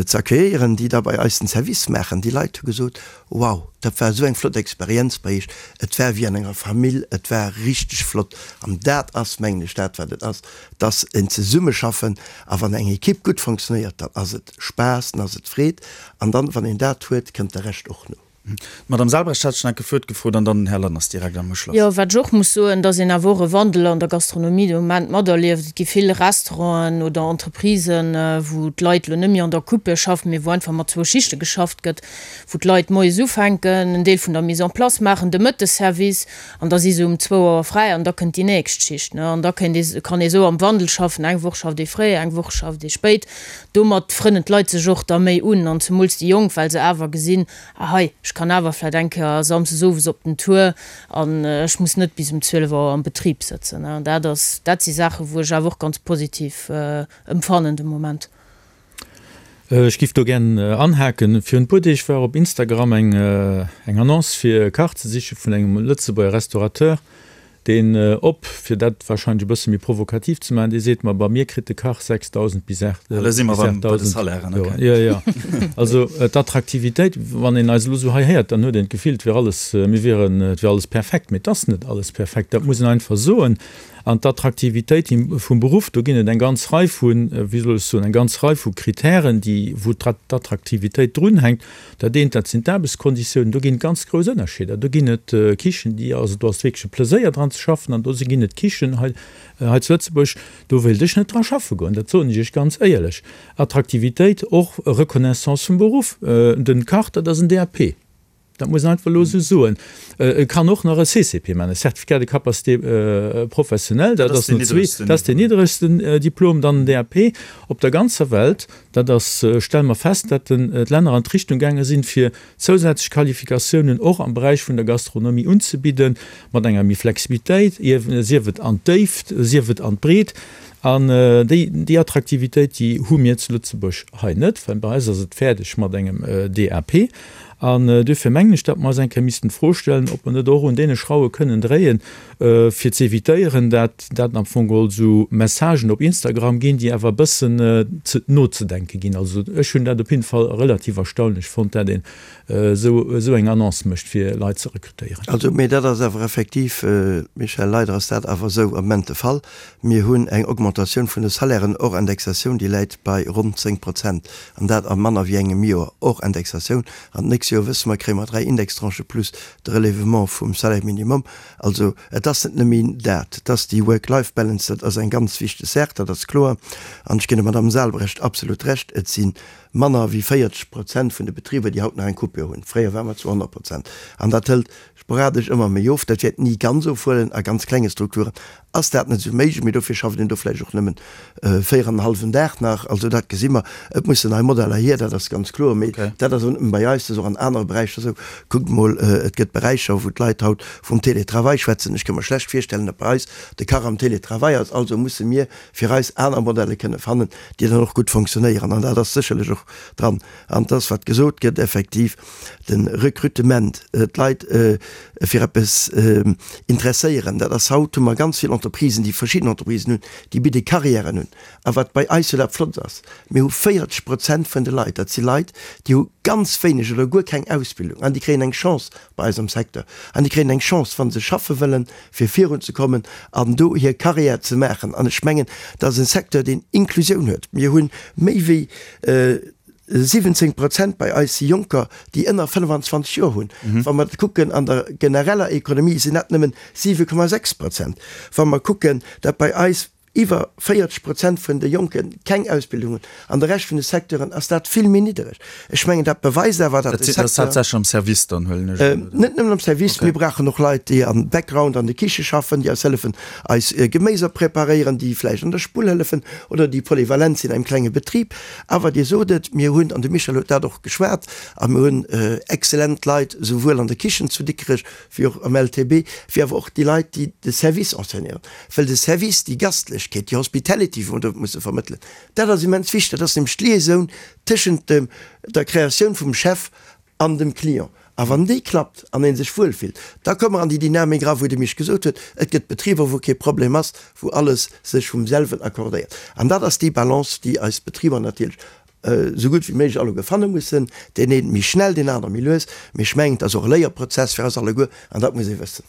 ze accueilléieren, déi da bei eis den Service maachen. Déi Leit hu gesot, Wow, dat war esou eng flott Experienz bei Iech, et war wéi an enger Famill, et war richteg flott. An dat ass, mengen ech, dat wat et ass, dass en Zesummeschaffen a wann eng Equipe gutt fonctionnéiert, dann ass et Spaass, dann ass et Freed an dann, wann een dat huet, kënnt de Rescht och no. D'Madame Selbrecht hat schon enke Wuert gefrot an dann den Här Lanners direkt am Uschloss. Jo, wat ech och muss soen, dass een awer och e Wandel an der Gastronomie de Moment materlieft. Et gi vill Restauranten oder Entreprisen, wou d'Leit elo net méi an der Coupe schaffen, mee wou einfach mat zwou Schichte geschafft gëtt, wou d'Leit moies ufänken, en Deel vun der Mise en place maachen, de Mëttesservice, an da si se um zwou Auer fräi an da kënnt déi nächst Schicht. An da kéint ee, kann ee sou am Wandel schaffen, eng Woch schafft ee fréi, eng Woch schafft ee spéit. Domat frënnen d'Leit sech och da méi un, an zemools déi Jonk, well se awer gesinn, ah hei, ech kann awer vläicht eng Kéier samsdes owes op den Tour an ech muss net bis um 12 Auer am Betrib sëtzen. An dat ass, dat si Saachen, wou ech awer och ganz positiv emfannen de Moment. Ech giff do gären anhaken. Virun e puer Deeg war op Instagram eng eng Annonce fir e Kach ze siche vun engem Lëtzebuerger Restaurateur, deen op, fir dat wahrscheinlech e bësse méi provokativ ze maachen, dee seet, ma bei mir kritt de Kach 6.000 bis 8.000. Elo si mer erëm bei de Salairen, ok. Jo, jo. Also d'Attraktivitéit, wann een eis elo esou hei héiert, dann huet een d'Gefill, et wier alles, mir wieren, et wier alles perfekt. Mee et ass net alles perfekt, dat muss een einfach soen. An d'Attraktivitéit vum Beruff, do ginn et eng ganz Rei vu, wéi soll ech soen, eng ganz Rei vu Kritären, déi, wou d'Attraktivitéit drunhänkt. Dat eent, dat sinn d'Aarbechtskonditiounen. Do ginn et ganz grouss Ënnerscheeder. Do ginn et Kichen, déi, also do ass wierklech e Pleséier dran ze schaffen an do ginn et Kichen hei, hei zu Lëtzebuerg, do wéilt ech net dra schaffe goen. Dat soen ech Iech ganz éierlech. Attraktivitéit, och Reconnaissance vum Beruff. Den Kach, dat ass en DAP. Dat muss een einfach elo esou soen. E kann och nach e CCP maachen, e Certificat de capacité professionnelle, dat ass no zwee, dat ass deen niddregsten Diplom, dann den DAP. Op der ganzer Welt, dat ass, stelle mer fest, dat d'Länner an d'Richtung gaange sinn, fir zousätzlech Qualifikatiounen och am Beräich vun der Gastronomie unzebidden, mat enger méi Flexibilitéit, sief et an d'Déift, sief et an d'Breet. An déi, déi Attraktivitéit, déi hu mir zu Lëtzebuerg hei net, well bei eis ass et fäerdeg mat engem DAP. An duerfir mengen ech, datt mer eis eng Kéier missten d'Fro stellen, ob mer net och un deene Schrauwe kënnen dréien, fir ze évitéieren, dat dat am Fong geholl esou Messagen op Instagram ginn, déi awer e bëssen ze nozedenke ginn. Also ech hunn dat op jidde Fall relativ erstaunlech fonnt, dat een esou esou eng Annonce mécht, fir Leit ze rekrutéieren. Also, mee dat ass awer effektiv, Michel, leider ass dat awer esou am Moment de Fall. Mir hunn eng Augmentatioun vun de Salairen hors Indexatioun, déi läit bei ronn 10 Prozent, an dat a manner wéi engem Joer, hors Indexatioun. An d'nächst Joer, wësse mer, kréie mer 3 Indextranchë plus de Relèvement vum Salaire minimum. Also et ass net nëmme dat, et ass déi Work-Life-Balance, dat ass eng ganz wichteg Saach, dat ass kloer. An ech ginn der Madamm Salbrecht absolut Recht, et si manner wéi 40 Prozent vun de Betriber, déi haut nach eng Coupure hunn. Fréier ware mer zu 100 Prozent. An dat hëlt sporadesch ëmmer méi of. Dat wäert ni ganz ofhuelen. A ganz klenge Strukturen ass dat net esou méiglech, mee dofir schafft een do vläicht och nëmmen 4 an en hallwen Dag nach. Also dat gesi mer. Et mussen nei Modeller hier, dat ass ganz kloer. Mee dat ass och net nëmme bei eis, dat ass och an anere Beräicher esou. Kuckt mol, et gëtt Beräicher, wou d'Leit haut vum Télétravail schwätzen. Ech ka mer schlecht virstellen, datt bei eis de Kach am Télétravail ass. Also musse mir fir eis aner Modelle kënne fannen, déi dann och gutt fonctionnéieren. An dat ass sécherlech och dran. An et ass, wat gesot gëtt, effektiv, De Recrutement, d'Leit fir eppes interesséieren, dat ass haut, hu mer ganz vill Entreprisen, déi verschidden Entreprisen hunn, déi bidde Carrièren un. A wat bei eis jo dat Flott ass, mir hu 40 Prozent vun de Leit, dat si Leit, déi hu ganz wéineg oder guer keng Ausbildung an déi kréien eng Chance bei eis am Secteur an déi kréien eng Chance, wa se schaffe wëllen, fir virunzekommen an do hir Carrière ze maachen. An ech mengen, dat ass e Secteur, deen Inklusioun huet. Mir hu méi wéi 17 Prozent bei eis si Jonker, déi ënner 25 Joer hunn. Wa mer kucken an der genereller Ekonomie, sinn dat nëmmen 7,6 Prozent. Wa mer kucken, datt bei eis iwwer 40 Prozent vun de Jonke keng Ausbildung hunn, an de Rescht vun de Secteuren ass dat vill méi niddereg. Ech mengen, dat beweist awer, datt de Secteur. Dat ass haaptsächlech am Service dann, huelen ech un, oder? Net nëmmen am Service. Mir brauchen och Leit, déi am Background an de Kiche schaffen, déi eis hëllefen, eis Geméiser preparéieren, déi vläicht an der Spull hëllefen oder déi polyvalent sinn an engem klenge Betrib. Awer Dir sot et, mir hunn, an de Michel huet dat och geschwat, a mir hunn exzellent Leit, souwuel an der Kichen zu Dikrech wéi och am LTB, wéi awer och déi Leit, déi de Service enseignéieren. Well de Service, déi Gastlechkeet, déi Hospitality, wou mer do musse vermëttelen, dat ass immens wichteg. Dat ass nämlech d'Liaisoun tëschent dem, der Kreatioun vum Chef an dem Client. A wann déi klappt an ee sech wuel fillt, da komme mer an déi Dynamik era wou de Misch gesot huet, et gëtt Betriber wou kee Problem ass, wou alles sech vum selwen accordéiert. An dat ass déi Balance, déi eis Betriber natierlech esou gutt wéi méiglech alleguer fanne mussen, deen een méi schnell, deen aner méi lues. Mee ech mengen, et ass och e Léierprozess fir eis alleguer an dat muss ee wëssen.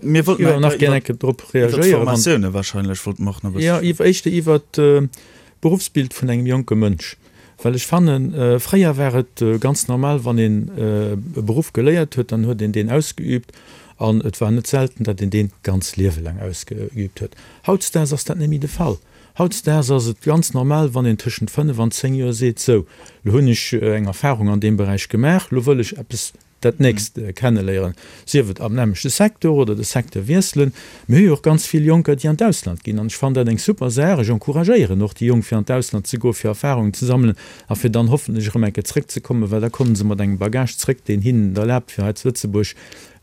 Mir wollten Jo, nach gär eng Kéier drop reagéieren. Iwwer d'Formatioune wahrscheinlech wollte mer och nach e bësse Jo, iwwer, éischter iwwer d'Beruffsbild vun engem jonke Mënsch. Well ech fannen, fréier war et ganz normal, wann een e Beruff geléiert huet, dann huet een deen ausgeübt an et war net selten, datt een deen d'ganz Liewe laang ausgeübt huet. Hautdesdaags ass dat net méi de Fall. Hautdesdaags ass et ganz normal, wann een tëschent 5 an 10 Joer seet, sou, lo hunn ech eng Erfahrung an deem Beräich gemaach, lo wëll ech eppes dat nächst kenneléieren, sief et am nämmlechte Secteur oder de Secteur wiesselen. Mir hu jo och ganz vill Jonker, déi an d'Ausland ginn, an ech fannen dat eng super Saach. Ech encouragéieren och déi Jonk, fir an d'Ausland ze goen, fir Erfahrungen ze sammelen a fir dann hoffentlech erëm eng Kéier zrëckzekommen, well da komme se mat engem Bagage zrëck, deen hinnen et erlaabt, fir hei zu Lëtzebuerg,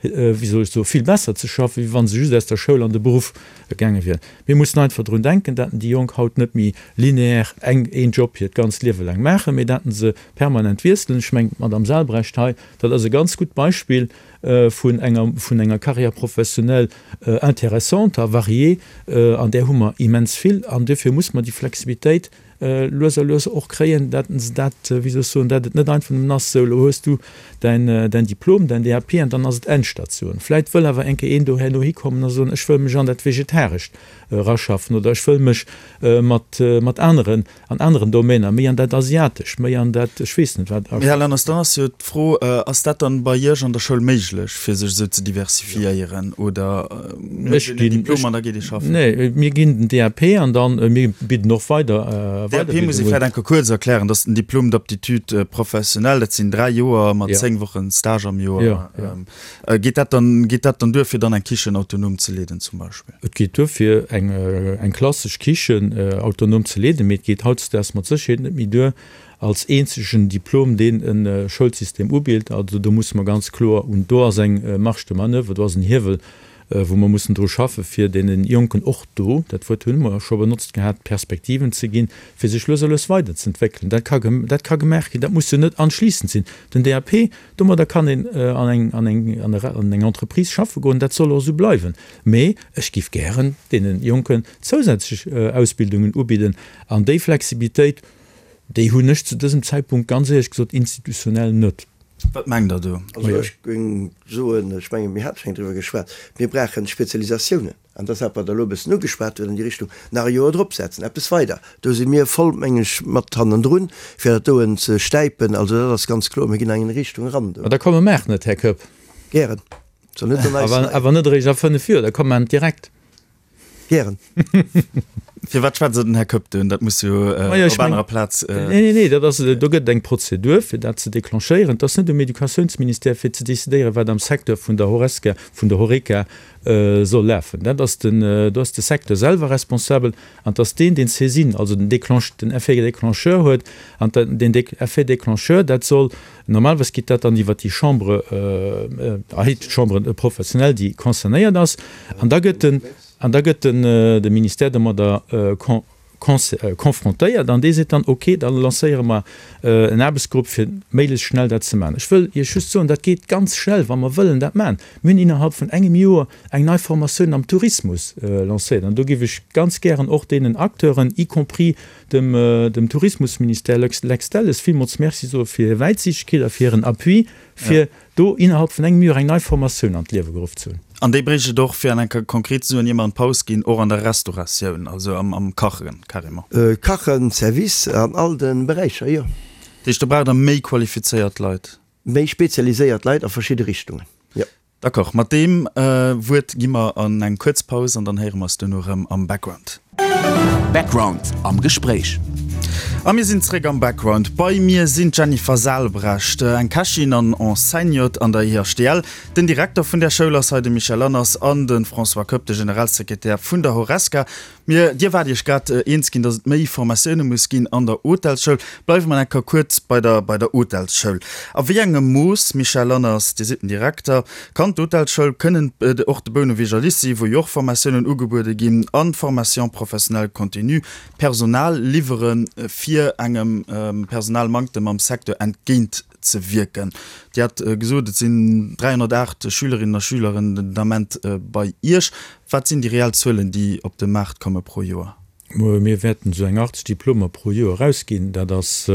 wéi soll ech soen, vill besser ze schaffen, wéi wa se just aus der Schoul an de Beruff gaange wieren. Mir mussen einfach drun denken, datt déi Jonk haut net méi lineaire eng, een Job hiert ganzt Liewe laang maachen, mee datt se permanent wiesselen. Ech mengen, d'Madame Salbrecht hei, dat ass e ganz gutt Beispill vun enger, vun enger Carrière professionnelle intéressante a variée, an där hu mer immens vill. An duerfir muss mer déi Flexibilitéit lues a lues och kréien, dat se dat, wéi soll ech soen, dat et net einfach nëmmen ass, sou, elo hues du däin, däin Diplom, däin DAP an dann ass et Endstation. Vläit wëll awer eng Kéier een do herno hikommen a soen, ech wëll mech an dat Vegetarescht eraschaffen oder ech wëll mech mat, mat aneren An aneren Domäner, méi an dat Asiatescht, méi an dat ech weess net wat. Här Lanners, dann ass jo d'Fro, Ass dat dann bei Iech an der Schoul méiglech, fir sech esou ze diversifiéieren, oder mécht een en Diplom an da geet ee schaffen? Nee, mir ginn den DAP an dann, mir bidden och weider DAP muss ee vläicht eng Kéier kuerz erklären, dat ass den Diplôme d'aptitude professionnelle, dat sinn 3 Joer mat 10 Wochen Stage am Joer. Geet dat dann, geet dat dann duer, fir dann eng Kichen autonom ze leeden zum Beispill? Et geet duer, fir eng, eng klassesch Kichen autonom ze leeden, mee et geet hautdesdaags mat Sécherheet net méi duer als eenzegen Diplom, deen e Schoulsystem ubilt. Also do musse mer ganz kloer un, do ass eng Marge de manoeuvre, do ass en Hiewel. wou mer mussen dru schaffen, fir deene Jonken och do, dat Wuert hunn mer scho benotzt gehat, Perspektiven ze ginn, fir sech lues a lues weiderzentwéckelen. Dat ka, dat ka gemaach ginn, dat muss jo net anschliissend sinn. Den DAP, domadder kann een an eng, an eng, an eng Entreprise schaffe goen, dat soll och esou bleiwen. Mee ech géif gären deene Jonken zousätzlech Ausbildungen ubidden an déi Flexibilitéit, déi hunn ech zu dësem Zäitpunkt ganz éierlech gesot institutionell net. Wat mengt Der do? Also ech géing soen, ech mengen, mir hate schonn driwwer geschwat, mir brauchen Spezialisatiounen. An dat ass dat, wat Der elo e bëssen ugeschwat hutt an déi Richtung, nach e Joer dropsetzen, eppes weider. Do si mir voll, meng ech, mat hannendrun, fir dat doen ze stäipen. Also dat ass ganz kloer, mir ginn an eng Richtung eran do. Ma da komme maachen et, Här Koepp. Gären. Soll net an eis Awer, awer net eréischt a 5 Joer, da komme mer direkt. Gären. Firwat schwätzt Der den Här Koepp do un? Dat muss jo op anerer Plaz. Nee, nee, nee, dat ass, do gëtt et eng Prozedur, fir dat ze declenchéieren. Et ass net um Educatiounsministère, fir ze decidéieren, wat am Secteur vun der Horesca, vun der Horeca soll lafen. Dat ass den, do ass de Secteur selwer responsabel an et ass deen, deen d'Saisine, also den Déclenche, den Effet déclencheur huet. An den Effet déclencheur, dat soll, normalerweis geet dat dann iwwert déi Chambre, d'Chambre professionnelle, déi concernéiert ass. An da gëtt den, an da gëtt den, de Ministère domadder confrontéiert an dee seet dann, ok, da lancéiere mer en Aarbechtsgrupp fir méiglechst schnell dat ze maachen. Ech wëll Iech just soen, dat geet ganz schnell, wa mer wëllen dat maachen. Mir hunn innerhalb vun engem Joer eng nei Formatioun am Tourismus lancéiert an do géif ech ganz gären och deenen Acteuren, y compris dem, dem Tourismusministère Lex Delles, villmools Merci soe fir hir Wäitsichtegkeet a fir hiren Appui, fir do innerhalb vun engem Joer eng nei Formatioun an d'Liewe geruff ze hunn. An déi bréicht et och, fir an enker konkret ze soen, ier mer an d'Paus ginn, och an der Restauratioun, also am Kachen carrément. Kachen, Service, an all de Beräicher, jo. Dat heescht, do braucht Der méi qualifizéiert Leit? Méi spezialiséiert Leit a verschidde Richtungen, jo. D'accord, mat deem Wuert gi mer an eng kuerz Paus an dann héiere mer eis duerno erëm am Background. Background am Gespréich. A mir sinn zréck am Background. Bei mir sinn d'Jennifer Salbrecht, eng Kächin an Enseignante an der IHTL, den Direkter vun där Schoul ass hei de Michel Lanners an de François Koepp, de Generalsekretär vun der Horesca. Mir, Dir waart Iech grad eens ginn, datt et méi Formatioune muss ginn an der Hotelsschoul. Bleiwe mer eng Kéier kuerz bei der, bei der Hotelsschoul. A wéi engem Mooss, Michel Lanners, Dir sidd den Direkter, kann d'Hotelsschoul, kënnen och de Bouneweger Lycée, wou jo och Formatiounen ugebuede ginn, an d'Formation professionnelle continue, Personal liwwere fir engem Personalmanktem am Secteur entgéint ze wierken? Dir hat gesot, et sinn 308 Schülerinnen a Schüleren den Ament bei Iech. Wat sinn déi reell Zuelen, déi op de Maart komme pro Joer? Mir wäerten esou eng 80 Diplomer pro Joer erausginn. Dat ass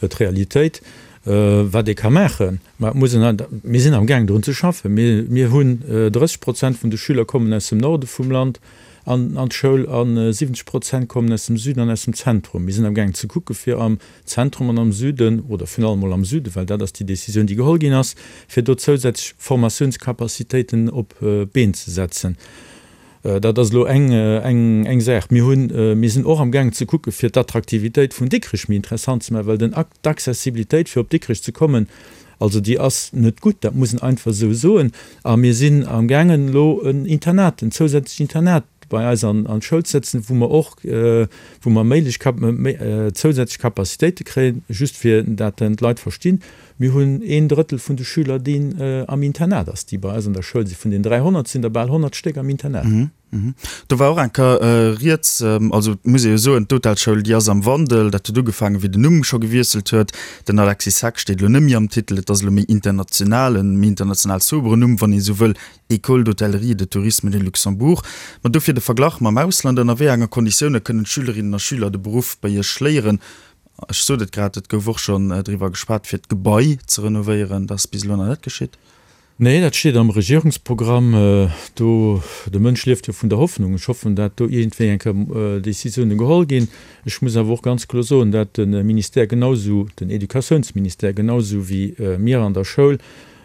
d'Realitéit, wat ee ka maachen. Mä et muss een, mir sinn amgaang drun ze schaffen. Mir hunn 30 Prozent vun de Schüler kommen aus dem Norde vum Land an d'Schoul a 70 Prozent kommen aus dem Süden an aus dem Zentrum. Mir sinn amgaang ze kucke fir am Zentrum an am Süden, oder virun allem mol am Süden, well dat ass déi Décisioun, déi geholl ginn ass, fir do zousätzlech Formatiounscapacitéiten op d'Been ze setzen. Dat ass elo eng, eng, eng Saach. Mir hunn, mir sinn och amgaangen ze kucke fir d'Attraktivitéit vun Dikrech méi interessant ze maachen, well den, d'Accessibilitéit fir op Dikrech ze kommen, also déi ass net gutt, dat muss een einfach esou soen. A mir sinn amgaangen elo en Internat, en zousätzlecht Internat bei eis an d'Schoul ze setzen, wou mer och, wou mer méiglech zousätzlech Capacitéite kréien, just fir dat d'Leit verstinn, Mir hunn een Drëttel vun de Schüler, deen am Internat ass, déi bei eis an der Schoul sinn. Vun den 300 sinn der bal 100 Stéck am Internat. Do war och eng Kéier rieds, also et muss ee jo soen, d'Hotelschoul, déi ass am Wandel. Dat huet ugefaangen, wéi den Numm scho gewiesselt huet. Den Alexis Heck steet elo net méi am Titel, et ass elo méi international, e méi international soberen Numm, wann ee sou wëll, École d'hôtellerie et de tourisme de Luxembourg. Ma dofir de Verglach mam Ausland, Ënner wéi enge Konditioune kënnen d'Schülerinnen a Schüler de Beruff bei Iech léieren? Ech sot et grad, et gouf och schonn driwwer geschwat, fir d'Gebai ze renovéieren. Dat ass bis elo nach net geschitt. Nee, dat steet am Regierungsprogramm. Do, de Mënsch lieft jo vun der Hoffnung. Ech hoffen, dat do iergendwéi eng Kéier Décisiounen geholl ginn. Ech muss awer och ganz kloer soen, dat de Ministère genausou, den Educatiounsministère genausou wéi mir an der Schoul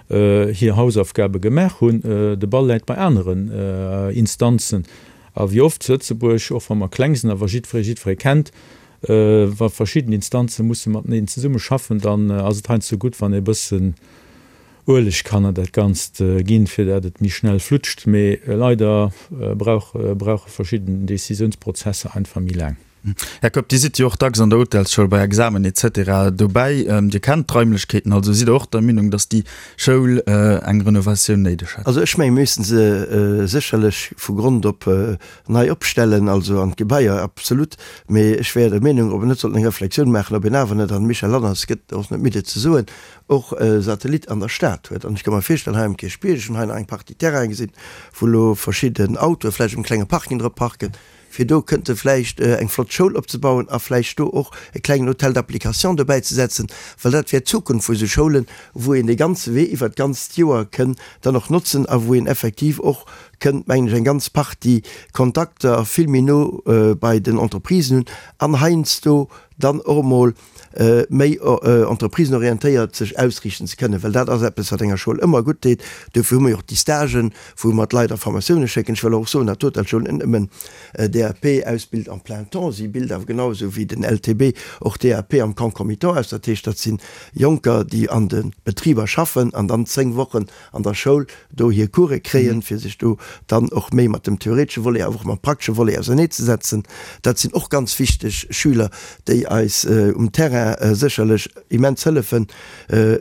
hir Hausaufgabe gemaach hunn. De Ball läit bei aneren Instanzen. A wéi oft zu Lëtzebuerg, och wa mer kleng sinn, awer jiddweree jiddweree kennt, Wa verschidden Instanze musse mateneen zesumme schaffen, dann ass et heiansdo gutt, wann ee bëssen Ueleg kann an dat Ganzt ginn, fir dat et méi schnell flutscht. Mee leider brauche verschidden Decisiounsprozesser einfach méi laang. Här Koepp, Dir sidd jo och dacks an der Hotelsschoul bei Examen etc. Dobäi. Dir kennt d'Raimlechkeeten also. Sidd Der och der Meenung, datt déi Schoul eng Renovatioun néideg hätt? Also ech mengen, mir missten se sécherlech vu Grond op nei opstellen, also an d'Gebaier, absolut. Mee ech wär der Meenung, ob een net sollt eng Reflexioun maachen, ob een awer net, an de Michel Lanners gëtt och net midd et ze soen, och e Satellit an der Stad huet. An ech ka mer virstellen, hei um Kierchbierg, ech hunn hei nach eng Partie Terrainen gesinn, wou elo verschidden Autoe vläicht um klenge Parking drop parken, fir do kënnte vläicht eng flott Schoul opzebauen a vläicht do och e klengen Hôtel d'application dobäi ze setzen, well dat wär d'Zukunft vu sou Schoulen, wou een dee ganze Wee iwwert d'ganzt Joer kënn dann och notzen a wou een effektiv och kënnt, mengen ech, eng ganz Partie Kontakter vill méi no bei den Entreprisen hunn an heiansdo dann och emol méi entreprisenorientéiert sech ausriichten ze kënnen, well dat ass eppes, wat enger Schoul ëmmer gutt deet. Dofir hu mer jo och déi Stagen, wou mer d'Leit a Formatioune schécken. Ech wëll och soen, datt d'Hotelschoul net nëmmen DAP ausbilt en plein temps, si bilt awer genau esou wéi den LTB och DAP am concomitant aus. Dat heescht, dat si Jonker, déi an de Betriber schaffen an dann 10 Wochen an der Schoul do hir Course kréien, fir sech do dann och méi mat dem theoretesche Volet, awer och mam praktesche Volet auserneezesetzen. Dat sinn och ganz wichteg Schüler, déi eis um Terrain sécherlech immens hëllefen.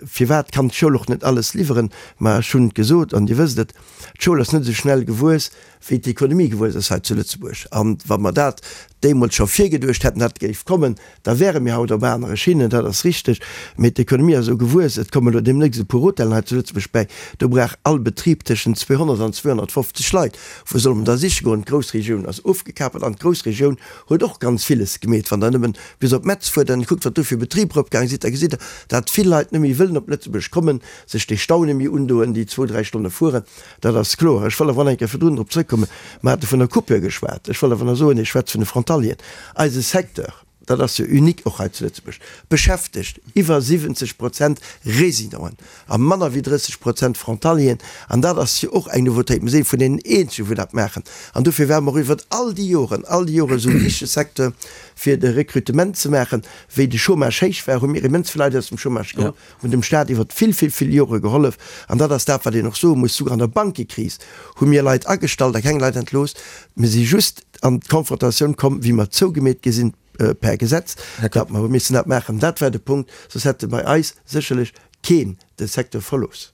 Firwat kann d'Schoul och net alles liwweren? Ma ech hunn et gesot an Dir wësst et, d'Schoul ass net esou schnell gewuess, wéi d'Ekonomie gewuess ass hei zu Lëtzebuerg. An wa mer dat deemools scho virgeduecht hätten, dat géif kommen, da wäre mir haut op anere Schinnen, dat ass richteg. Mee d'Ekonomie ass esou gewuess, et kommen elo deemnächst e puer Hotellen hei zu Lëtzebuerg bäi, do brauch all Betrib tëschent 200 an 250 Leit. Wou solle mer da siche goen? D'Groussregioun ass ofgekapelt an d'Groussregioun huet och ganz villes gemeet. Wann Der nëmmen bis op Metz fuert an kuckt, wat do fir Betriber opgaange sinn, da gesitt Der, dat vill Leit net méi wëllen op Lëtzebuerg kommen, sech dee Stau net méi undoen, déi zwou, dräi Stonne fueren. Dat ass kloer. Ech wëll awer nach eng Kéier virdrun drop zrëckkommen, Mer hate vun der Coupure geschwat. Ech wëll awer nach soen, Dir schwätzt vun de Frontalieren. Eise Secteur, dat ass jo unique och hei zu Lëtzebuerg, beschäftegt iwwer 70 Prozent Résidenten a manner wéi 30 Prozent Frontalieren. An dat ass jo och eng Nouveautéit. Mir si vun deenen eenzegen, wou dat maachen. An dofir ware mer och iwwer all déi Joren, all déi Joren esou e wichtege Secteur, fir de Recrutement ze maachen. Wéi de Chômage héich war, hu mir immens vill Leit aus dem Chômage geholl. hunn dem Staat iwwer vill, vill, vill Jore gehollef. An dat ass dat, wat een och soe muss, Souguer an der Bankekris hu mir Leit agestallt a keng Leit entlooss. Mir si just an d'Konfrontatioun komm, wéi mer zougemeet gi sinn per Gesetz, datt mer hu missen dat maachen. Dat war de Punkt, soss hätte bei eis sécherlech keen de Secteur verlooss.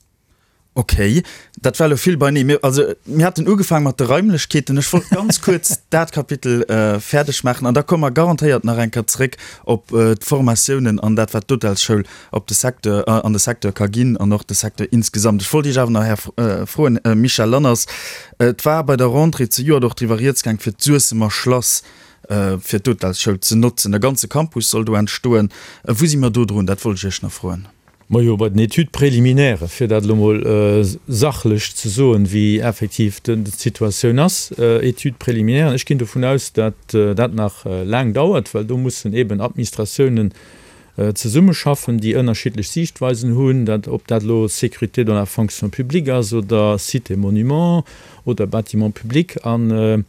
Ok, dat war elo vill beinee. Mir, also, mir haten ugefaang mat de Raimlechkeeten. Ech wollt ganz kuerz dat Kapitel fäerdeg maachen an da komme mer garantéiert nach eng Kéier zréck op d'Formatiounen an dat, wat d'Hotelsschoul op de Secteur, an de Secteur ka ginn an och de Secteur insgesamt. Ech wollt Iech awer nach, Här, froen, Michel Lanners, Et war bei der Rentrée zejoert och driwwer rieds gaang, fir d'Suessemer Schlass fir d'Hotelsschoul ze notzen. E ganze Campus soll do entstoen. Wou si mer do drun? Dat wollt ech Iech nach froen. Majo, bei den Études préliminaires, fir dat elo mol sachlech ze soen, wéi effektiv d'Situatioun ass, Études préliminaires, ech ginn dovun aus, datt dat nach laang dauert, well do mussen eben Administratiounen zesummeschaffen, déi ënnerschiddlech Siichtweisen hunn, dat, ob dat elo Sécurité dans la fonction publique ass oder Sites et Monuments oder Bâtiments publics. An,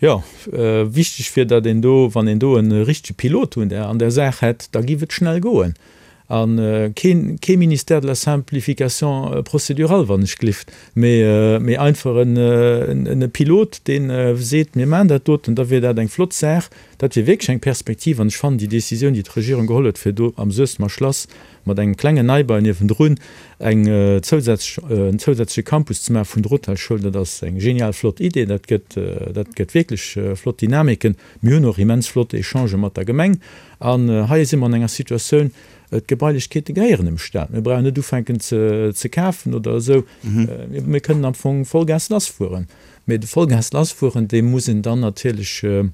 jo, wichteg wier, datt een do, wann een do e richtege Pilot un der, an der Saach hätt, da giff et schnell goen. A keen, kee Ministère de la simplification procédurale, wann ech glift, mee, mee einfach en, en e Pilot, dee seet, mir maachen dat doten, da wier dat eng flott Saach. Dat wier wierklech eng Perspektiv. An ech fannen déi Décisioun, déi d'Regierung geholl huet, fir do am Suessemer Schlass mat engem klengen Neibau niewendrun eng zousätzlech, en zousätzleche Campus ze maache vun der Hotelschoul, dat ass eng genial flott Idee. Dat gëtt, dat gëtt wierklech flott Dynamiken. Mir hunn och immens flott Echangë mat der Gemeng. An hei si mer an enger Situatioun, d'Gebailechkeete gehéieren dem Staat. Mir brauchen net ufänken ze kafen oder esou. Mir kënnen am Fong Vollgas lassfueren. Mee de Vollgas lassfueren, dee muss een dann natierlech e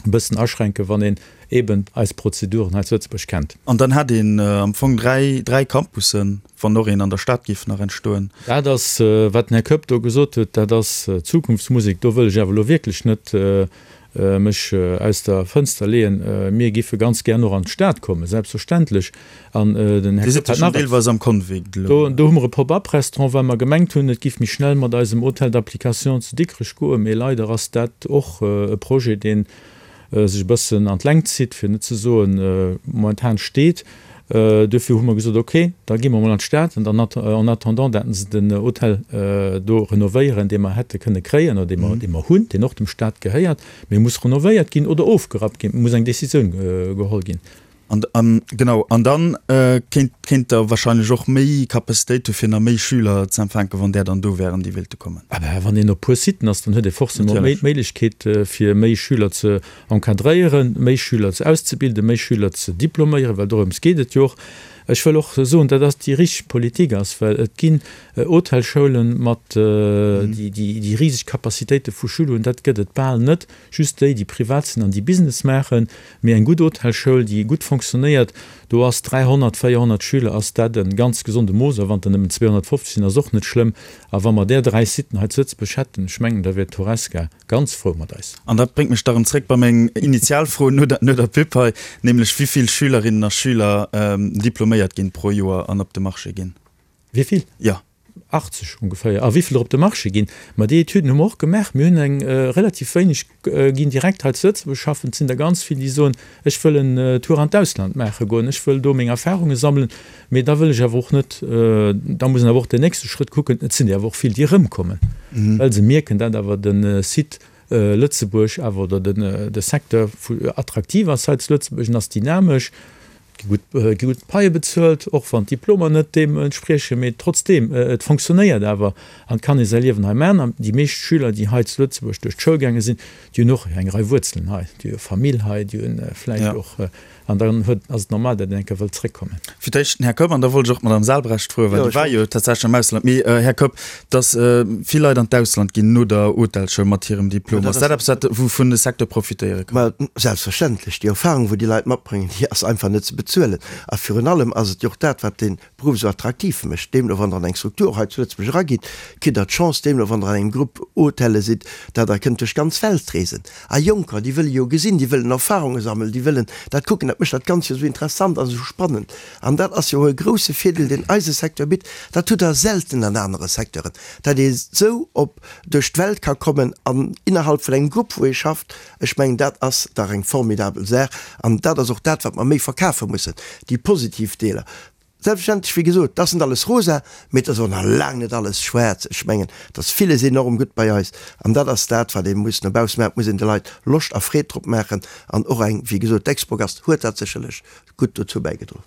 bëssen aschränken, wann een eeben eis Prozeduren hei zu Lëtzebuerg kennt. An dann hätt een am Fong dräi Campussen, wann och een an der Stad géif nach entstoen. Dat ass, wat den Här Koepp do gesot huet, dat ass Zukunftsmusek. Do wëll ech awer elo wierklech net mech aus der Fënster leeën. Mir giffe ganz gär och an d'Stad kommen, selbstverständlech. An den Här Koepp hat nach deelweis am Convict elo. Do hu mer e Pop-up-Restaurant, well mer gemengt hunn, et giff méi schnell mat eisem Hôtel d'application zu Dikrech goen. Mee leider ass dat och e Projet, dee sech e bëssen an d'Längt zitt, fir net ze soen, momentan steet. Duerfir hu mer gesot, ok, da gi mer emol an d'Stad an dann en attendant dat se den Hotel do renovéieren, dee mer hätte kënne kréien oder dee mer, dee mer hunn, deen och dem Stat gehéiert, mee e muss renovéiert ginn oder ofgerappt ginn, et muss eng Décisioun geholl ginn. An, genau, an dann kéint, kéint Der wahrscheinlech och méi Capacitéit hu fir nach méi Schüler ze empfänken, wann där dann do wären, déi wéilte kommen. Ah ben, wann een op puer Siten ass, dann huet ee forcément méi d'Méiglechkeet fir méi Schüler ze encadréieren, méi Schüler ze auszebilden, méi Schüler ze diploméieren, well dorëms geet et jo och. Ech wëll och soen, dat ass déi richteg Politik ass, well et ginn Hotelschoulen mat déi déi riseg Capacitéite vu Schüler hunn, dat gëtt et bal net, just déi, déi privat sinn an déi Business maachen. Mee eng gutt Hotelschoul, déi gutt fonctionnéiert, do ass 300, 400 Schüler ass dat e ganz gesonde Mooss. A wann der nëmmen 250 sinn, ass och net schlëmm. A wa mer där dräi Siten hei zu Lëtzebuerg hätten, ech mengen, da wier d'Horesca Ganz frou mat eis. An dat bréngt mech da rëm zréck bei meng initial Fro no der, no der Pub hei, nämlech wivill Schülerinnen a Schüler diploméiert ginn pro Joer an op de Marché ginn. Wivill? Jo. 80 ongeféier. A wivill der op de Marché ginn? Ma déi Etüden hu mer och gemaach. Mir hunn eng relativ wéineg ginn direkt hei zu Lëtzebuerg schaffen. Et sinn der ganz vill, déi soen, Ech wëll en Tour an d'Ausland maache goen, ech wëll do meng Erfahrunge sammelen, mee da wëll ech awer och net, da muss een awer och den nächste Schrëtt kucken, et sinn der awer och vill, déi erëmkommen, well se mierken, dat awer de Site Lëtzebuerg awer oder de Secteur attraktiv ass hei zu Lëtzebuerg, en ass dynamesch, et gi gutt, gi gutt Paie bezuelt, och wann d'Diplomer net deem entspriechen, mee trotzdeem, et fonctionnéiert awer an et kann ee säi Liewen hei maachen. An déi meescht Schüler, déi hei zu Lëtzebuerg duerch d'Schoul gaange sinn, Déi hunn och eng Rei Wuerzelen hei, déi hu Famill hei, déi hunn vläicht och, an dann huet, ass et normal, datt een eng Kéier wëllt zréckkommen. Fir d'éischt den Här Kopp an da wollt ech och d'Madame Salbrecht froen, well déi war jo tatsächlech am Ausland. Mee, Här Kopp, datt vill Leit an d'Ausland ginn no der Hotelschoul mat hirem Diplom, ass dat eppes, wat, wouvun de Secteur profitéiere kann? Ma selbstverständlech. Déi Erfahrung, wou déi Leit matbréngen, déi ass einfach net ze bezuelen. A virun allem ass et jo och dat, wat dee Beruff esou attraktiv mécht. Deemno wann Der an eng Struktur hei zu Lëtzebuerg eragitt, kritt Der d'Chance, deemno wann Der an engem Grupp Hotelle sidd, datt Der kënnt duerch d'ganz Welt reesen. A Jonker, déi wëlle jo gesinn, déi wëllen Erfahrunge sammelen, déi wëllen dat kucken. Dat mécht dat Ganzt jo esou interessant an esou spannend. An dat ass jo e grouse Virdeel, deen eise Secteur bitt. Dat hutt Der selten an anere Secteuren, datt ee sou op duerch d'Welt ka kommen an innerhalb vun engem Grupp, wou ee schafft. Ech mengen, dat ass dach eng formidabel Saach. An dat ass och dat, wat mer méi verkafe mussen, déi positiv Deeler. Selbstverständlech, wéi gesot, et ass net alles rosa, mee et ass och nach laang net alles schwaarz. Ech mengen, et ass villes enorm gutt bei eis. An dat ass dat, wat ee muss no bausse maachen. Et muss een de Leit Loscht a Freed drop maachen. An och eng, wéi gesot, d'Expogast huet dat sécherlech gutt dozou bäigedroen.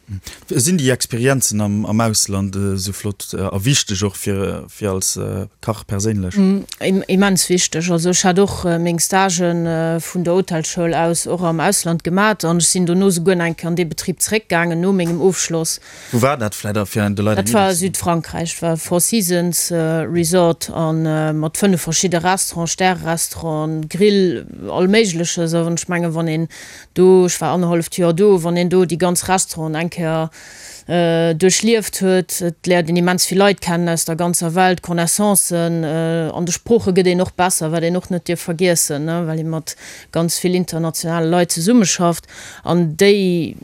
Sinn déi Experienzen am Ausland esou flott a wichteg och fir als Kach perséinlech? Immens wichteg. Also ech hat och meng Stagen vun der Hotelschoul aus och am Ausland gemat an ech sinn dono souguer nach eng Kéier an dee Betrib zeréckgaangen no mengem Ofschloss. Wou war dat vläit a fir de Leit eng Dat war Iddi ze ginn? Südfrankräich, dat war Four Seasons Resort a mat 5 verschidde Restauranten, Stärerestauranten, Grill, all Méigleches. An ech mengen, wann een do, ech war annerhalleft Joer do, wann een do déi ganz Restauranten eng Kéier duerchlieft huet, et léiert een immens vill Leit kennen aus der ganzer Welt, Connaissancen, an de Sprooche gëtt een och besser, wat een och net dierf vergiessen, well ee mat ganz vill internationale Leit zesummeschafft an déi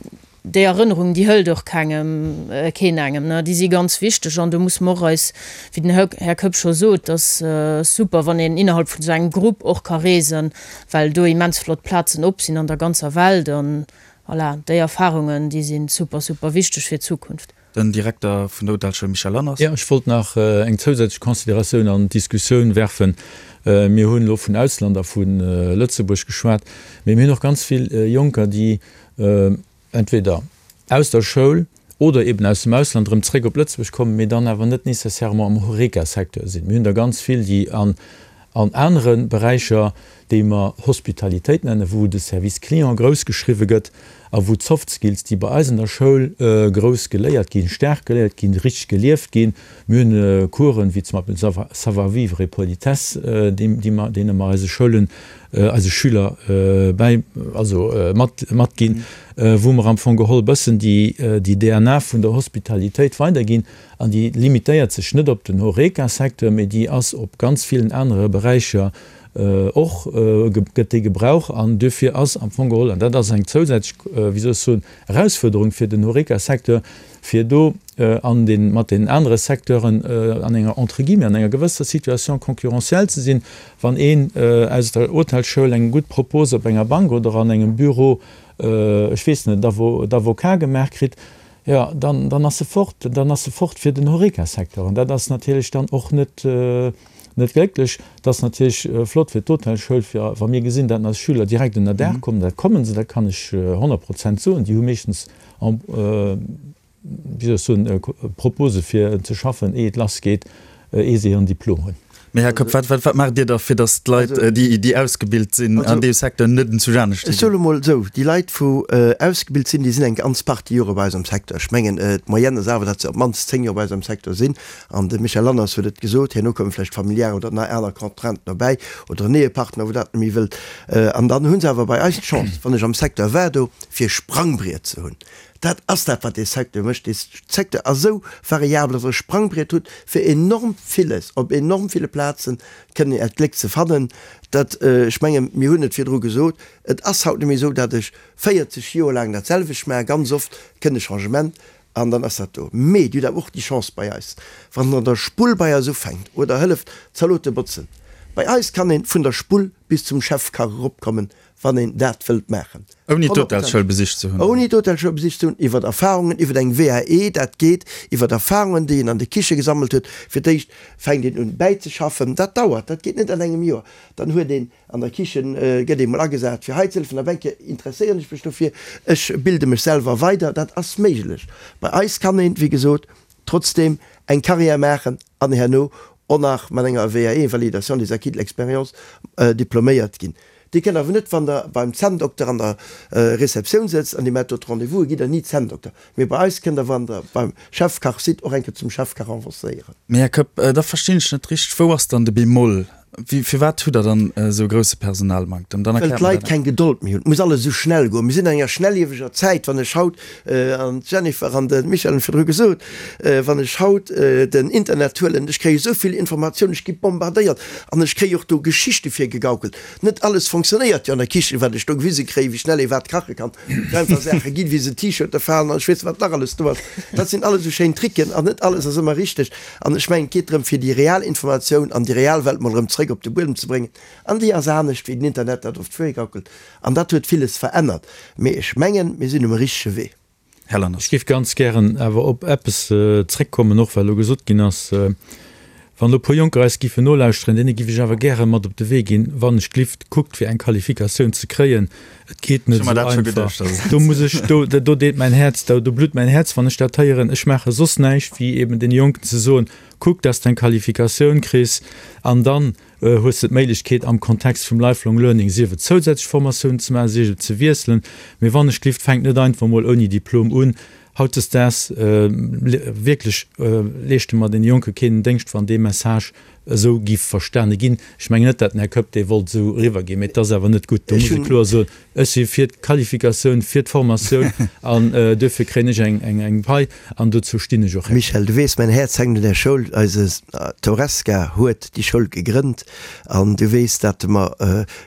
déi Erënnerungen, déi hëlt och kengem, keen engem, ne, déi si ganz wichteg an do musse mer och eis, wéi den Här Koepp scho sot, ass super, wann een innerhalb vun esou engem Grupp och ka reesen, well do immens flott Plazen op sinn an der ganzer Welt an voilà, déi Erfahrungen, déi si super, super wichteg fir d'Zukunft. Den Direkter vun der Hotelschoul Michel Lanners. Jo, ech wollt nach eng zousätzlech Consideratioun an d'Diskussioun werfen. Mir hunn elo vun Ausland a vu Lëtzebuerg geschwat, mee mir hunn och ganz vill Jonker, déi entweder aus der Schoul oder eben aus dem Ausland erëm zréck op Lëtzebuerg kommen, mee dann awer net nécessairement am Horeca-Secteur sinn. Mir hunn der ganz vill, déi an an anere Beräicher, déi mer Hospitalitéit nennen, wou de Service client grouss geschriwwe gëtt a wou d'Soft Skills, déi bei eis an der Schoul grouss geléiert ginn, staark geléiert ginn, richteg gelieft ginn. Mir hunn Coursen, wéi zum Beispill Savoir-vivre et politesse, déi mer, deene mer eise Schoulen, eise Schüler bäi, also mat, matginn, wou mer am Fong geholl e bëssen déi, déi DNA vun der Hospitalitéit weiderginn. An déi limitéiert sech net op den Horeca-Secteur, mee déi ass op ganz villen anere Beräicher och, gëtt déi gebrauch. An duerfir ass am Fong geholl, an dat ass eng zousätzlech, wéi soll ech soen, Erausfuerderung fir den Horeca-Secteur, fir do an de mat den anere Secteuren an enger, entre guillemets, an enger gewësser Situation concurrentielle ze sinn, wann een aus der Hotelschoul eng gutt Propose op enger Bank oder an engem Büro, ech weess net, d'Avocat gemaach kritt. Jo, dann, dann ass se fort, dann ass se fort fir den Horeca-Secteur. An dat ass natierlech dann och net, net glécklech. Et ass natierlech flott fir d'Hotelschoul, fir wa mir gesinn, datt eis Schüler direkt ënnerdaach kommen, dat kommen se, dat kann ech 100 Prozent soen, déi hu meeschtens en, wéi soll ech soen, Propose fir ze schaffen, éi et lassgeet, éi se hiren Diplom hunn. Mee Här Koepp, wat, wat, wat maacht Dir da fir datt d'Leit, déi, déi ausgebilt sinn an deem Secteur, net en Zuch anescht Ech ginn? soe mol esou, déi Leit wou ausgebilt sinn, déi sinn eng ganz Partie Jore bei eis am Secteur. Ech mengen, d'Moyenne ass awer, datt se op d'mannst 10 Joer bei eis am Secteur sinn. An de Michel Lanners huet et gesot, herno komme vläicht familiär oder nei aner Contrainten dobäi oder en Ehepartner, wou dat net méi wëllt. An dann hu se awer bei eis d'Chance, wann ech am Secteur war do, fir e Sprangbriet ze hunn. Dat ass dat, wat dee Secteur mécht. Dee Secteur ass esou variabel, datt Der e Sprangbriet hutt, fir enorm villes op enorm ville Plaze kënnen Äert Gléck ze fannen. Dat, ech mengen, mir hunn et virdru gesot, et ass haut net méi esou, datt ech 40 Joer laang dat selwecht maachen. Ganz oft kënnt e Changement an dann ass dat do. Mee Dir hutt awer och déi Chance bei eis, wann Der an der Spull bei eis ufänkt oder hëlleft Zalote botzen, bei eis kann ee vun der Spull bis zum Chefkach eropkommen, wann een dat wëllt maachen. Ouni d'Hotelschoul besicht ze hunn. Ouni d'Hotelschoul besicht ze hunn, iwwer Erfahrungen, iwwer eng WAE, dat geet iwwer Erfahrungen, déi een an de Kiche gesammelt huet. Fir d'éischt fänkt een un bäizeschaffen, dat dauert, dat geet net an engem Joer. Dann huet een an der Kichen, gëtt ee mol agesat fir hei ze hëllefen, op eng Kéier interesséieren ech mech dofir, ech bilde mech selwer weider, dat ass méiglech. Bei eis kann een, wéi gesot, trotzdeem eng Carrière maachen an herno och nach mat enger WAE, Validation des acquis de l'expérience, diploméiert ginn. Dir kënnt awer net, wann Der beim Zänndokter an der Receptioun sëtzt an Dir maacht do d'Rendez-vouse, gitt Der ni Zänndokter. Mee bei eis kënnt Der, wann Der beim Chefkach sidd, och eng Kéier zum Chefkach avancéieren. Mee Här Koepp, da verstinn ech net richteg, Wou ass dann de Bémol? Firwat hutt Der dann esou e grousse Personalmanktem? Dann Well erkläert mer d'Leit dat. keng Gedold méi hunn. Et muss alles esou schnell goen. Mir sinn an enger schnellieweger Zäit. Wann ech haut, an d'Jennifer an de Michel hunn et virdru gesot, wann ech haut den Internet huelen, ech kréie esou vill Informatiounen, ech gi bombardéiert an ech kréie och do Geschichte virgegaukelt. Net alles fonctionnéiert jo an der Kichen, wat ech do gewise kréien, wéi schnell ee wat kache kann. Et einfach Saache ginn, wéi se T-Shirte falen an ech weess net, wat nach alles do ass. Dat sinn alles esou schéin Tricken an net alles ass ëmmer richteg. An ech mengen, et geet drëm, fir déi real Informatioun an déi real Welt mol erëm zréck op de Buedem ze bréngen. An déi ass anescht, wéi den Internet dat oft virgaukelt. An dat huet villes verännert. Mee ech mengen, mir sinn um richtege Wee. Här Lanners. Ech géif ganz gären awer op eppes zréckkommen, och well elo gesot ginn ass, wann elo e puer Jonker eis géifen nolauschteren, deene géif ech awer gäre mat op de Wee ginn, wann ech glift, kuckt fir eng Qualifikatioun ze kréien, et geet net esou einfach. Do muss ech, do, do deet mäin Häerz, do blutt mäin Häerz, wann ech dat héieren. Ech maache soss näischt wéi eben deene Jonken ze soen, kuck, dass de eng Qualifikatioun kriss an dann hues de d'Méiglechkeet am Kontext vum Lifelong Learning sief et zousätzlech Formatiounen ze maachen, sief et ze wiesselen. Mee wann ech glift, fänkt net einfach mol ouni Diplom un. Hautdesdaags wierklech leeschte mer deene Jonke keen Déngscht, wann dee Message esou giff verstane ginn. Ech mengen net, dat den Här Koepp dee wollt esou eriwwerginn, mee et ass awer net gutt. Do muss ee kloer soen, Ech si fir d'Qualifikatioun, fir d'Formatioun an duerfir kréien ech eng Pai an dozou stinn ech och. Michel, du weess, mäin Häerz hänkt un där Schoul. Eise d'Horesca huet déi Schoul gegrënnt an du weess, dat mer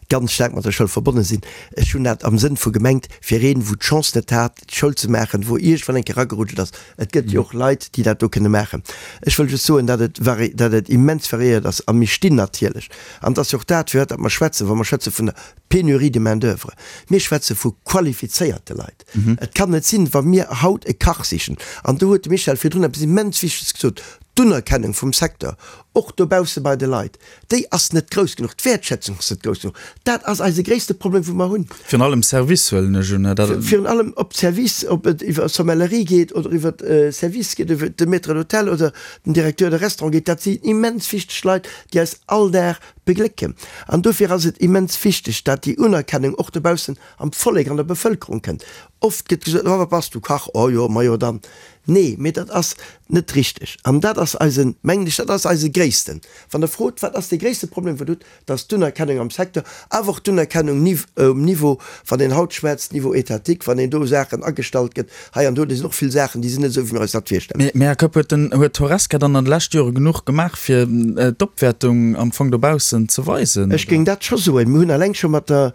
ganz staark mat der Schoul verbonne sinn. Ech hunn dat am Sënn vu gemengt, fir een, wou d'Chance net hat, d'Schoul ze maachen, wou iergendwann eng Kéier eragerutscht ass. Et gëtt jo och Leit, déi dat do kënne maachen. Ech wëll just soen, dat et vari, dat et immens variéiert ass a mir stinn natierlech, an et ass jo och dat, fir wat dat mer schwätzen, wa mer schwätze vun der Pénurie de main d'oeuvre. Mir schwätze vu qualifizéierte Leit. Et kann net sinn, wa mir haut e Kach sichen, an do huet de Michel virdrun eppes immens Wichteges gesot, d'Unerkennung vum Secteur, och dobausse bei de Leit, déi ass net grouss genuch, d'Wäertschätzung ass net grouss genuch. Dat ass eise gréisste Problem, wou mer hunn. Virun allem Service huelen ech un. Virun allem op Service, ob et iwwer Sommellerie geet oder iwwer Service geet, iwwer de Maître d'hôtel oder den Directeur de restaurant geet, dat sinn immens wichteg Leit, déi eis all Dag Beglécken. An dofir ass et immens wichteg, dat déi Unerkennung och dobaussen am Vollek, an der Bevëlkerung kënnt. Oft gëtt gesot, Oh, wat bass du, Kach? Oh jo, majo dann. Nee, mee dat ass net richteg. An dat ass eisen, mengen ech, dat ass eise gréissten, wann Der frot, wat ass dee gréisste Problem, wou Der hutt, dat ass d'Unerkennung am Secteur, awer och d'Unerkennung um Niveau, wann een haut schwätzt, Niveau étatique, wann een do Saachen agestallt gëtt, hei an do, do sinn och vill Saachen, déi sinn net esou, wéi mir eis dat virstellen. Mee, Här Koepp, huet den, huet d'Horesca dann an de leschte Jore genuch gemaach, fir d'Opwäertung am Fong dobaussen ze weisen, Ech géing dat scho soen. Mir hunn eleng scho mat der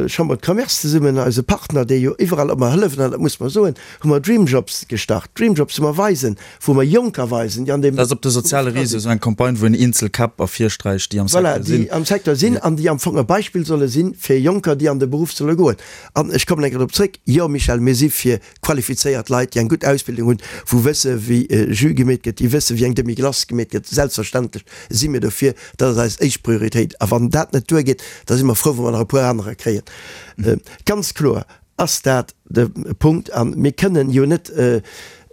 Chambre de Commerce zesummen, eise Partner, dee jo iwwerall. ob mer hëllefen, an dat muss mer soen, hu mer Dreamjobs gestart. Dreamjobs, wou mer weisen, wou mer Jonker weisen, déi an deem. Dat ass op de soziale Réseau esou eng Campagne, wou een eenzel Käpp ervirsträicht, déi am Secteur sinn. Voilà, déi am Secteur sinn an déi am Fong e Beispill solle sinn fir Jonker, déi an de Beruff solle goen. An ech kommen eng Kéier drop zréck, Jo, Michel, mir si fir qualifizéiert Leit, déi eng gutt Ausbildung hunn, wou wësse wéi Jus gemeet gëtt, déi wësse wéi eng Demi-glace gemeet gëtt. Selbstverständlech si mir dofir, dat ass eis éischt Prioritéit. A wann dat net duergeet, da si mer frou, wa mer nach e puer anerer kréien. Ganz kloer ass dat de Punkt. A mir kënnen jo net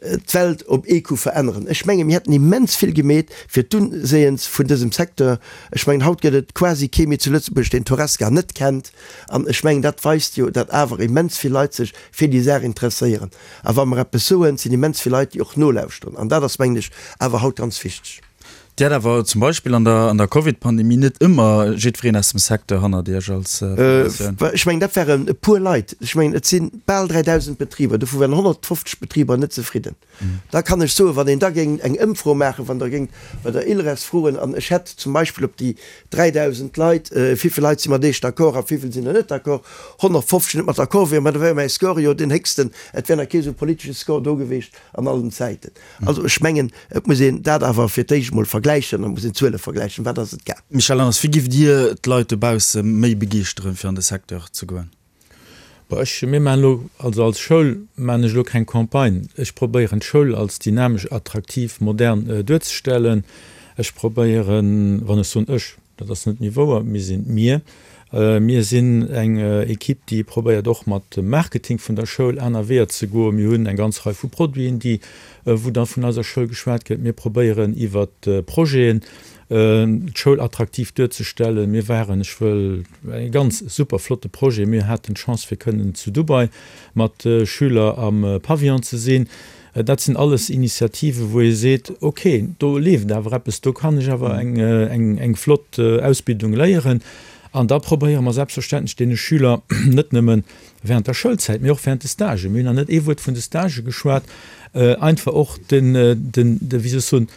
d'Welt op ee Coup veränneren. Ech menge mir hätten immens vill gemeet fir d'Unséiens vun dësem Secteur. Ech mengen, haut gëtt et quasi kee méi zu Lëtzebuerg, deen d'Horesca net kennt. An ech mengen, dat weist jo, datt awer immens vill Leit sech fir déi Saach interesséieren. A wa mer eppes soen, sinn immens vill Leit, déi och nolauschteren. An dat ass, mengen ech, awer haut ganz wichteg. Dir hat awer zum Beispill an der an der Covid-Pandemie net ëmmer jiddwereen aus dem Secteur hannert Iech als Federatioun. Ech mengen, dat waren e puer Leit. Ech mengen, et si bal 3.000 Betriber, dovu waren 150 Betriber net zefridden. Da kann ech soen, wann een da géing eng Ëmfro maachen, wann Der géingt bei der ILReS froen, an ech hätt zum Beispill op déi 3.000 Leit, wéivill Leit si mat Iech d'accord a wéivill sinn der net d'accord, 150 net mat d'accord wieren, ma da wär mäi Score jo deen héchsten, et wär nach kee esou politesche Score do geweecht an allen Zäiten. Also ech mengen, et muss een dat awer fir d'éischt emol vergläichen, et muss een d'Zuele vergläichen, wat ass et gaang. Michel Lanners, Wéi giff Dir d'Leit dobausse méi begeeschteren, fir an de Secteur ze goen? Bon, ech, mir maachen elo, also als Schoul maachen ech elo keng Campagne. Ech probéieren d'Schoul als dynamesch, attraktiv, modern duerzestellen. Ech probéieren, wann ech soen ech, dat ass net méi wouer, mir sinn mir. Mir sinn eng Equipe, déi probéiert och mat dem Marketing vun der Schoul aner Weeër ze goen. Mir hunn eng ganz Rei vu Produiten, déi, wou da vun eiser Schoul geschwat gëtt. Mir probéieren iwwert Projeten d'Schoul attraktiv duerzestellen. Mir waren, ech wëll, e ganz super flotte Projet, mir haten d'Chance fir kënnen zu Dubai mat Schüler am Pavillon ze sinn. Dat sinn alles Initiativen, wou ee seet, ok, do leeft awer eppes, do kann ech awer eng flott Ausbildung léieren. An da probéiere mer selbstverständlech deene Schüler net nëmmen während der Schoulzäit, mee och während de Stagen, mir hunn nach net ee Wuert vun de Stagë geschwat, einfach och den, wéi soll ech soen,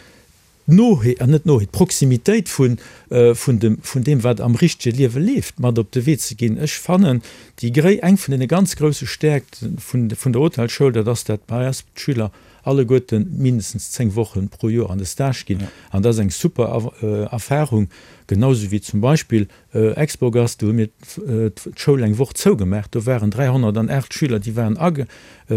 d'Noheet, an net d'Noheet, d'Proximitéit vun, vun dem, vun deem, wat am richtege Liewe leeft, mat op de Wee ze ginn. Ech fannen, déi gréi, eng vun deene ganz grousse Stäerkt vun, vun der Hotelschoul, dat ass, dat bei eis d'Schüler alleguerte mindestens 10 Woche pro Joer an de Stage ginn. An dat ass eng super Erfahrung, genau esou wéi zum Beispill Expogast, do hu mir d'Schoul eng Woch zougemaach, do waren 308 Schüler, déi waren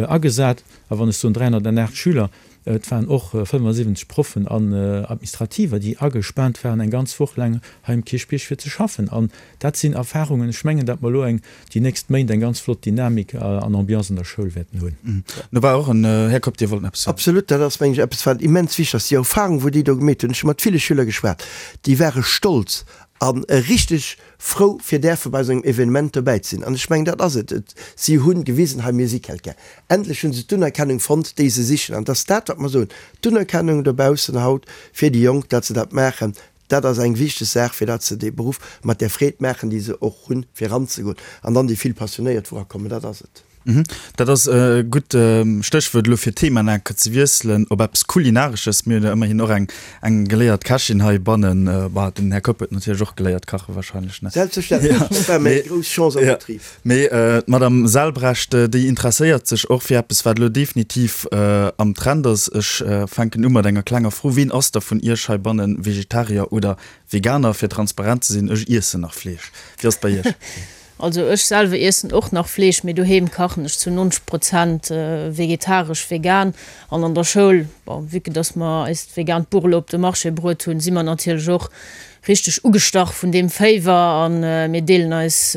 agesat. A wann ech soen 308 Schüler, Et waren och 75 Proffen an Administrativer, déi agespaant waren eng ganz Woch laang hei um Kierchbierg fir ze schaffen. An dat sinn Erfahrungen, ech mengen, datt mer elo eng, déi nächst Méint eng ganz flott Dynamik an Ambiance an der Schoul wäerten hunn. Do war och en, Här Kopp, Dir wollt nach eppes soen. Absolut, dat ass, mengen ech, eppes wat immens wichteg ass, déi Erfahrung, wou déi do gemeet hunn. Ech hu mat ville Schüler geschwat, déi ware stolz an richteg frou fir däerfe bei esou engem Evenement dobäi ze sinn. An ech mengen, dat ass et. Et, si hu gewisen, hei mir si quelqu'un. Endlech hu se d'Unerkennung fonnt, déi se sichen. An et ass dat, wat mer soen, d'Unerkennung dobaussen haut fir déi Jonk, datt se dat maachen, dat ass eng wichteg Saach, fir datt se dee Beruff mat där Freed maachen, déi se och hunn, fir eranzegoen. An dann déi vill Passionéiert, wou erakommen, dat ass et. Dat ass e gutt Stéchwuert elo fir d'Thema nach eng Kéier ze wiesselen op eppes Kulinaresches. Mir hunn jo ëmmerhin och eng eng geléiert Kächin heibannen. Bah, den Här Kopp huet natierlech och geléiert kache wahrscheinlech, ne? Selbstverständlech, dat war meng grouss Chance am Betrib. Mee d'Madame Selbrecht, déi interesséiert sech och fir eppes, wat elo definitiv am Trend ass. Ech fänken u mat enger klenger Fro, Ween ass da vun Iech heibanne Vegetarier oder Veganer? Fir transparent ze sinn, ech iessen nach Fleesch. Wéi ass et bei Iech? Also ech selwer iessen och nach Fleesch, mee doheem kachen ech zu 90 Prozent vegetaresch, vegan. An an der Schoul, bon, vue que dass mer eist vegaant Buch elo op de Marché bruet hunn, si mer natierlech och richteg ugestach vun deem Féiwer a mir deelen eis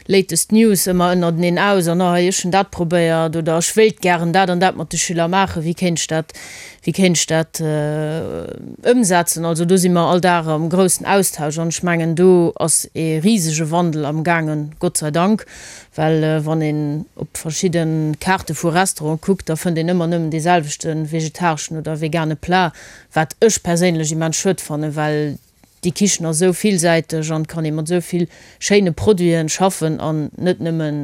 latest News ëmmer ënnerteneen aus an, oh hei, ech hunn dat probéiert oder ech wéilt gären dat an dat mat de Schüler maachen, wéi kéint ech dat, wéi kéint ech dat ëmsetzen. Also do si mer all Dag am groussen Austausch an ech mengen do ass ee risege Wandel am gaangen, Gott sei Dank, well wann een op verschidde Kaarte vu Restaurante kuckt, da fënnt een ëmmer nëmmen dee selwechte vegetareschen oder vegane Plat, wat ech perséinlech immens schued fannen, well Déi Kichen ass esou villsäiteg an kann ee mat esou vill schéine Produiten schaffen an net nëmmen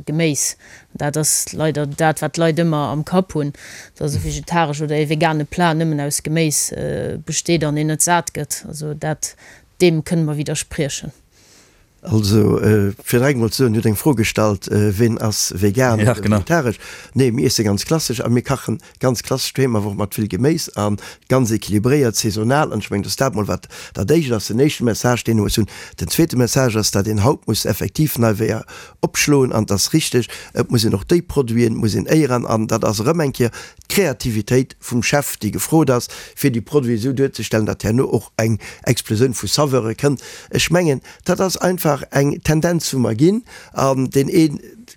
Geméis. Dat ass leider dat wat d'Leit ëmmer am Kapp hunn, dass e vegetaresch oder ee vegane Plat nëmmen aus Geméis besteet an een net sat gëtt. Also dat deem kënne mer widderspriechen. Also, fir direkt emol ze soen, Dir hutt eng Fro gestallt, Ween ass vegan oder vegetaresch? Nee, mir iesse ganz klassesch a mir kachen ganz klassesch doheem, awer och mat vill Geméis a ganz equilibréiert, saisonal. An ech mengen, dass dat mol wat dat Éischt ass, den éischte Message, deen ee muss hunn. Den zweete Message ass, datt een haut muss effektiv nei Weeër opschloen. An et ass richteg, et muss een och déi Produiten muss een éieren. An dat ass erëm eng Kéier d'Kreativitéit vum Chef, déi gefrot ass, fir déi Produiten esou duerzestellen, datt herno och eng Explosioun vu Saveure kënnt. Ech mengen, dat ass einfach eng Tendenz, wou mer ginn. An deen ee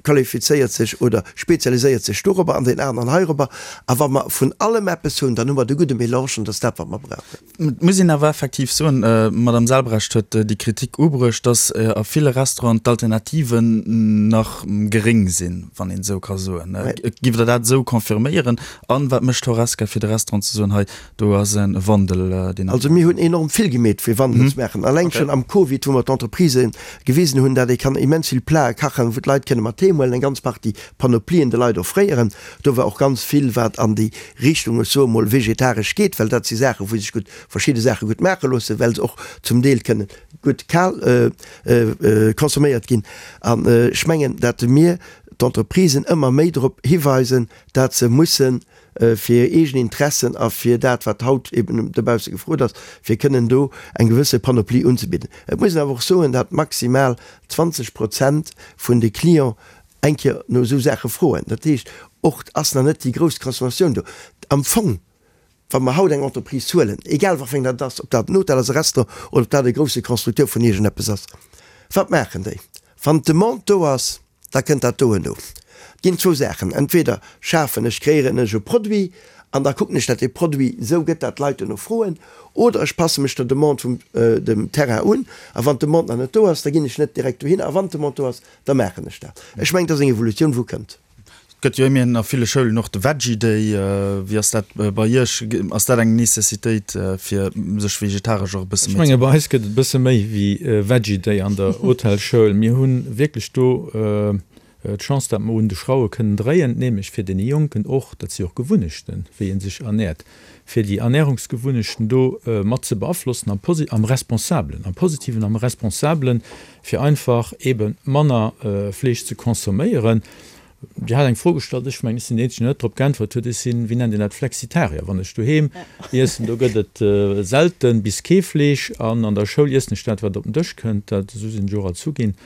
qualifizéiert sech oder spezialiséiert sech dorobber an deen aneren heirobber. A wa mer vun allem eppes hunn, dann hu mer de gudde Melange an dat ass dat, wat mer brauchen. Et muss een awer effektiv soen, d'Madame Selbrecht huet déi Kritik ubruecht, datt a ville Restauranten d'Alternativen nach geréng sinn, wann een esou ka soen. Giff Der dat esou confirméieren? An wat mécht d'Horesca fir de Restaurant ze soen, hei do ass e Wandel, deen. Also mir hunn enorm vill gemeet fir Wandel ze maachen. Alleng schonn am Covid, wou mer d'Entreprisë gewisen hunn, dat ee kann immens vill Plate kachen, wou d'Leit kënne mat heem huelen, eng ganz Partie Panoplien de Leit offréieren. Do war och ganz vill, wat an déi Richtung, ech soe mol, vegetaresch geet, well dat si Saachen, wou sech gutt verschidde Saache gutt maache loossen, well se och zum Deel kënne gutt kal consomméiert ginn. An ech mengen, dat mir d'Entreprisen ëmmer méi drop hiweisen, dat se mussen fir hir eegen Interessen a fir dat, wat haut eben dobausse gefrot ass, fir kënnen do eng gewësse Panoplie unzebidden. Et muss een awer och soen, dat maximal 20 Prozent vun de Clients eng Kéier no esou Saache froen. Dat heescht, och ass nach net déi grouss Transformatioun do. Am Fong, wa mer haut eng Entreprise huelen, egal wat fir eng dat ass, ob dat en Hotel ass, e Restaurant oder ob dat e grousse Constructeur vun iergendeppes ass, wat maachen déi? Wann d'Demande do ass, da kënnt dat doen do. Et ginn zwou Saachen, entweder schafen ech, kreéieren ech e Produit an da kucken ech, datt dee Produit esou gëtt, datt d'Leit duerno froen, oder ech passe mech der Demande vum dem Terrain un a wann d'Demande nach net do ass, da ginn ech net direkt dohinner a wann d'Demande do ass, da maachen ech dat. Ech mengen, et ass eng Evolutioun, wou kënnt. Et gëtt jo ëmmerhin a ville Schoulen och de Veggie Day. Wéi ass dat bei Iech? Ass dat eng Necessitéit, fir sech vegetaresch och e bësse méi ze. Ech menge bei eis gëtt et e bësse méi wéi Veggie Day an der Hotelschoul. Mir hu wierklech do d'Chance, datt mer un de Schrauwe kënnen dréien, nämlech fir deene Jonken och, dat si och Gewunnechten, wéi ee sech ernäert, fir déi Ernährungsgewunnechten do mat ze beaflossen am am Responsabelen, am Positiven, am Responsabelen, fir einfach eebe manner Fleesch ze consomméieren. Dir hat eng Fro gestallt, ech mengen, ech sinn deen Eenzegen, deen net drop geäntwert huet. Ech sinn, wéi nennt een dat, Flexitarier. Wann ech doheem iessen, do gëtt et selte bis kee Fleesch an an der Schoul iessen ech dat, wat op den Dësch kënnt. Dat, esou sinn ech och erzu ginn.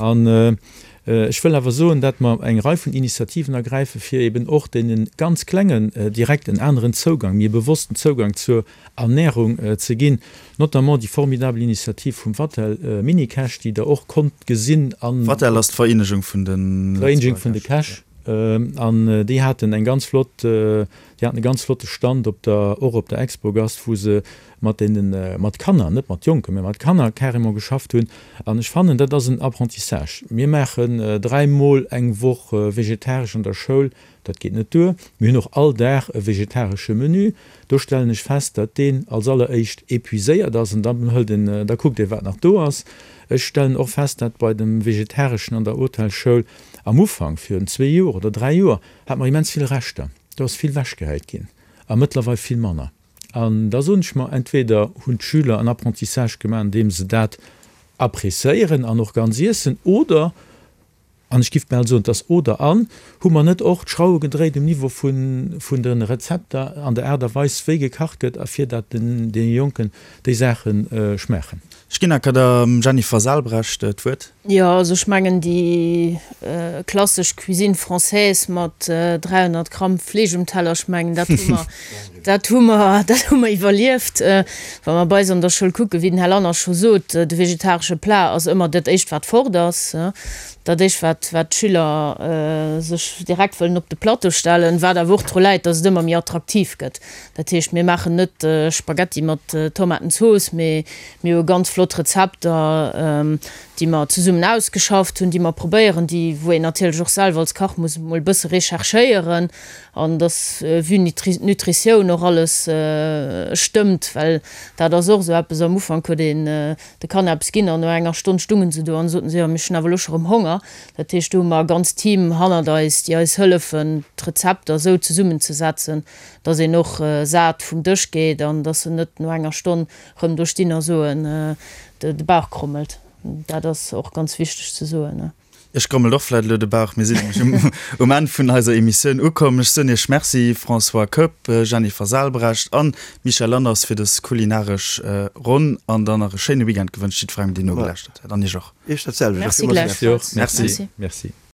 An ech wëll awer soen, dat mer eng Rei vun Initiativen ergräifen, fir eeben och deene ganz Klengen direkt en aneren Zougang, méi e bewossten Zougang zur Ernährung ze ginn, notamment déi formidabel Initiativ vum Vatel Minikäch, déi Der och konnt gesinn an. Vatel ass d'Vereenegung vun de Vereenegung vun de Käch, an déi haten eng ganz flott, déi haten e ganz flotte Stand op der, och op der Expogast, wou se mat deenen, mat Kanner, net mat Jonken, mä mat Kanner carrément geschafft hunn. An ech fannen, dat ass en Apprentissage. Mir maachen dräimol eng Woch vegetaresch an der Schoul, Dat geet net duer. Mir hunn och all Dag e vegetaresche Menü. Do stellen ech fest, datt deen als alleréischt épuiséiert ass an dann hëlt een, da kuckt ee wat nach do ass. Ech stellen och fest, datt bei dem Vegetareschen an der Hotelschoul am Ufank, virun zwee Joer oder dräi Joer, hate mer immens vill Reschter. Do ass vill wechgehäit ginn a mëttlerweil vill manner. An da soen ech mer, entweder hunn d'Schüler en Apprentissage gemaach, andeem se dat appréciéieren an och ganz iessen, oder An ech giff bal soen, et ass oder an. Hu mer net och d'Schrauwe gedréit um Niveau vun vun de Rezepter an der Aart a Weis wéi gekacht gëtt a fir dat den deene Jonken déi Saache schmaachen? Ech ginn enker der Jennifer Salbrecht d'Wuert. Jo, also ech mengen déi klassesch Cuisine française mat 300 Gramm Fleesch um Teller, ech mengen dat hu mer, dat hu mer, dat hu mer iwwerlieft. Wa mer bei eis an der Schoul kucken, wéi den Här Lanners scho sot, de vegetaresche Plat ass ëmmer dat éischt wat fort ass, dat éischt wat wat d'Schüler sech direkt wëllen op de Plateau stellen, wat awer och dru läit, datt et ëmmer méi attraktiv gëtt. Dat heescht, mir maachen net Spaghetti mat Tomatenzooss, mee mir hu ganz flott Rezepter, déi mer zesummen ausgeschafft hunn, déi mer probéieren, déi wou een natierlech och selwer als Kach muss emol e bësse recherchéieren an dass vue Nutritioun och alles stëmmt, well dat ass och esou eppes, am Ufank huet een de Kanner eppes ginn an no enger Stonn stungen se do an soten se, jo mir hunn awer elo scho rëm Honger. Dat heescht, do hu mer e ganzt Team hannert eis, déi eis hëllefen d'Rezepter esou zesummenzesetzen, dass een och sat vum Dësch geet an dass se net no enger Stonn rëm do stinn a soen, de Bauch krommelt. Dat ass och ganz wichteg ze soen. Iech grommelt och vläit elo de Bauch. Mir sinn nämlech um Enn vun eiser Emissioun ukomm. Ech soen Iech Merci, François Koepp, Jennifer Salbrecht an Michèle Lanners fir dës kulinaresch Ronn an dann nach e schéine Weekend gewënscht jiddwerengem, deen nogelauschtert huet an Iech och. Iech dat selwecht. Merci gläichfalls. Merci. Merci.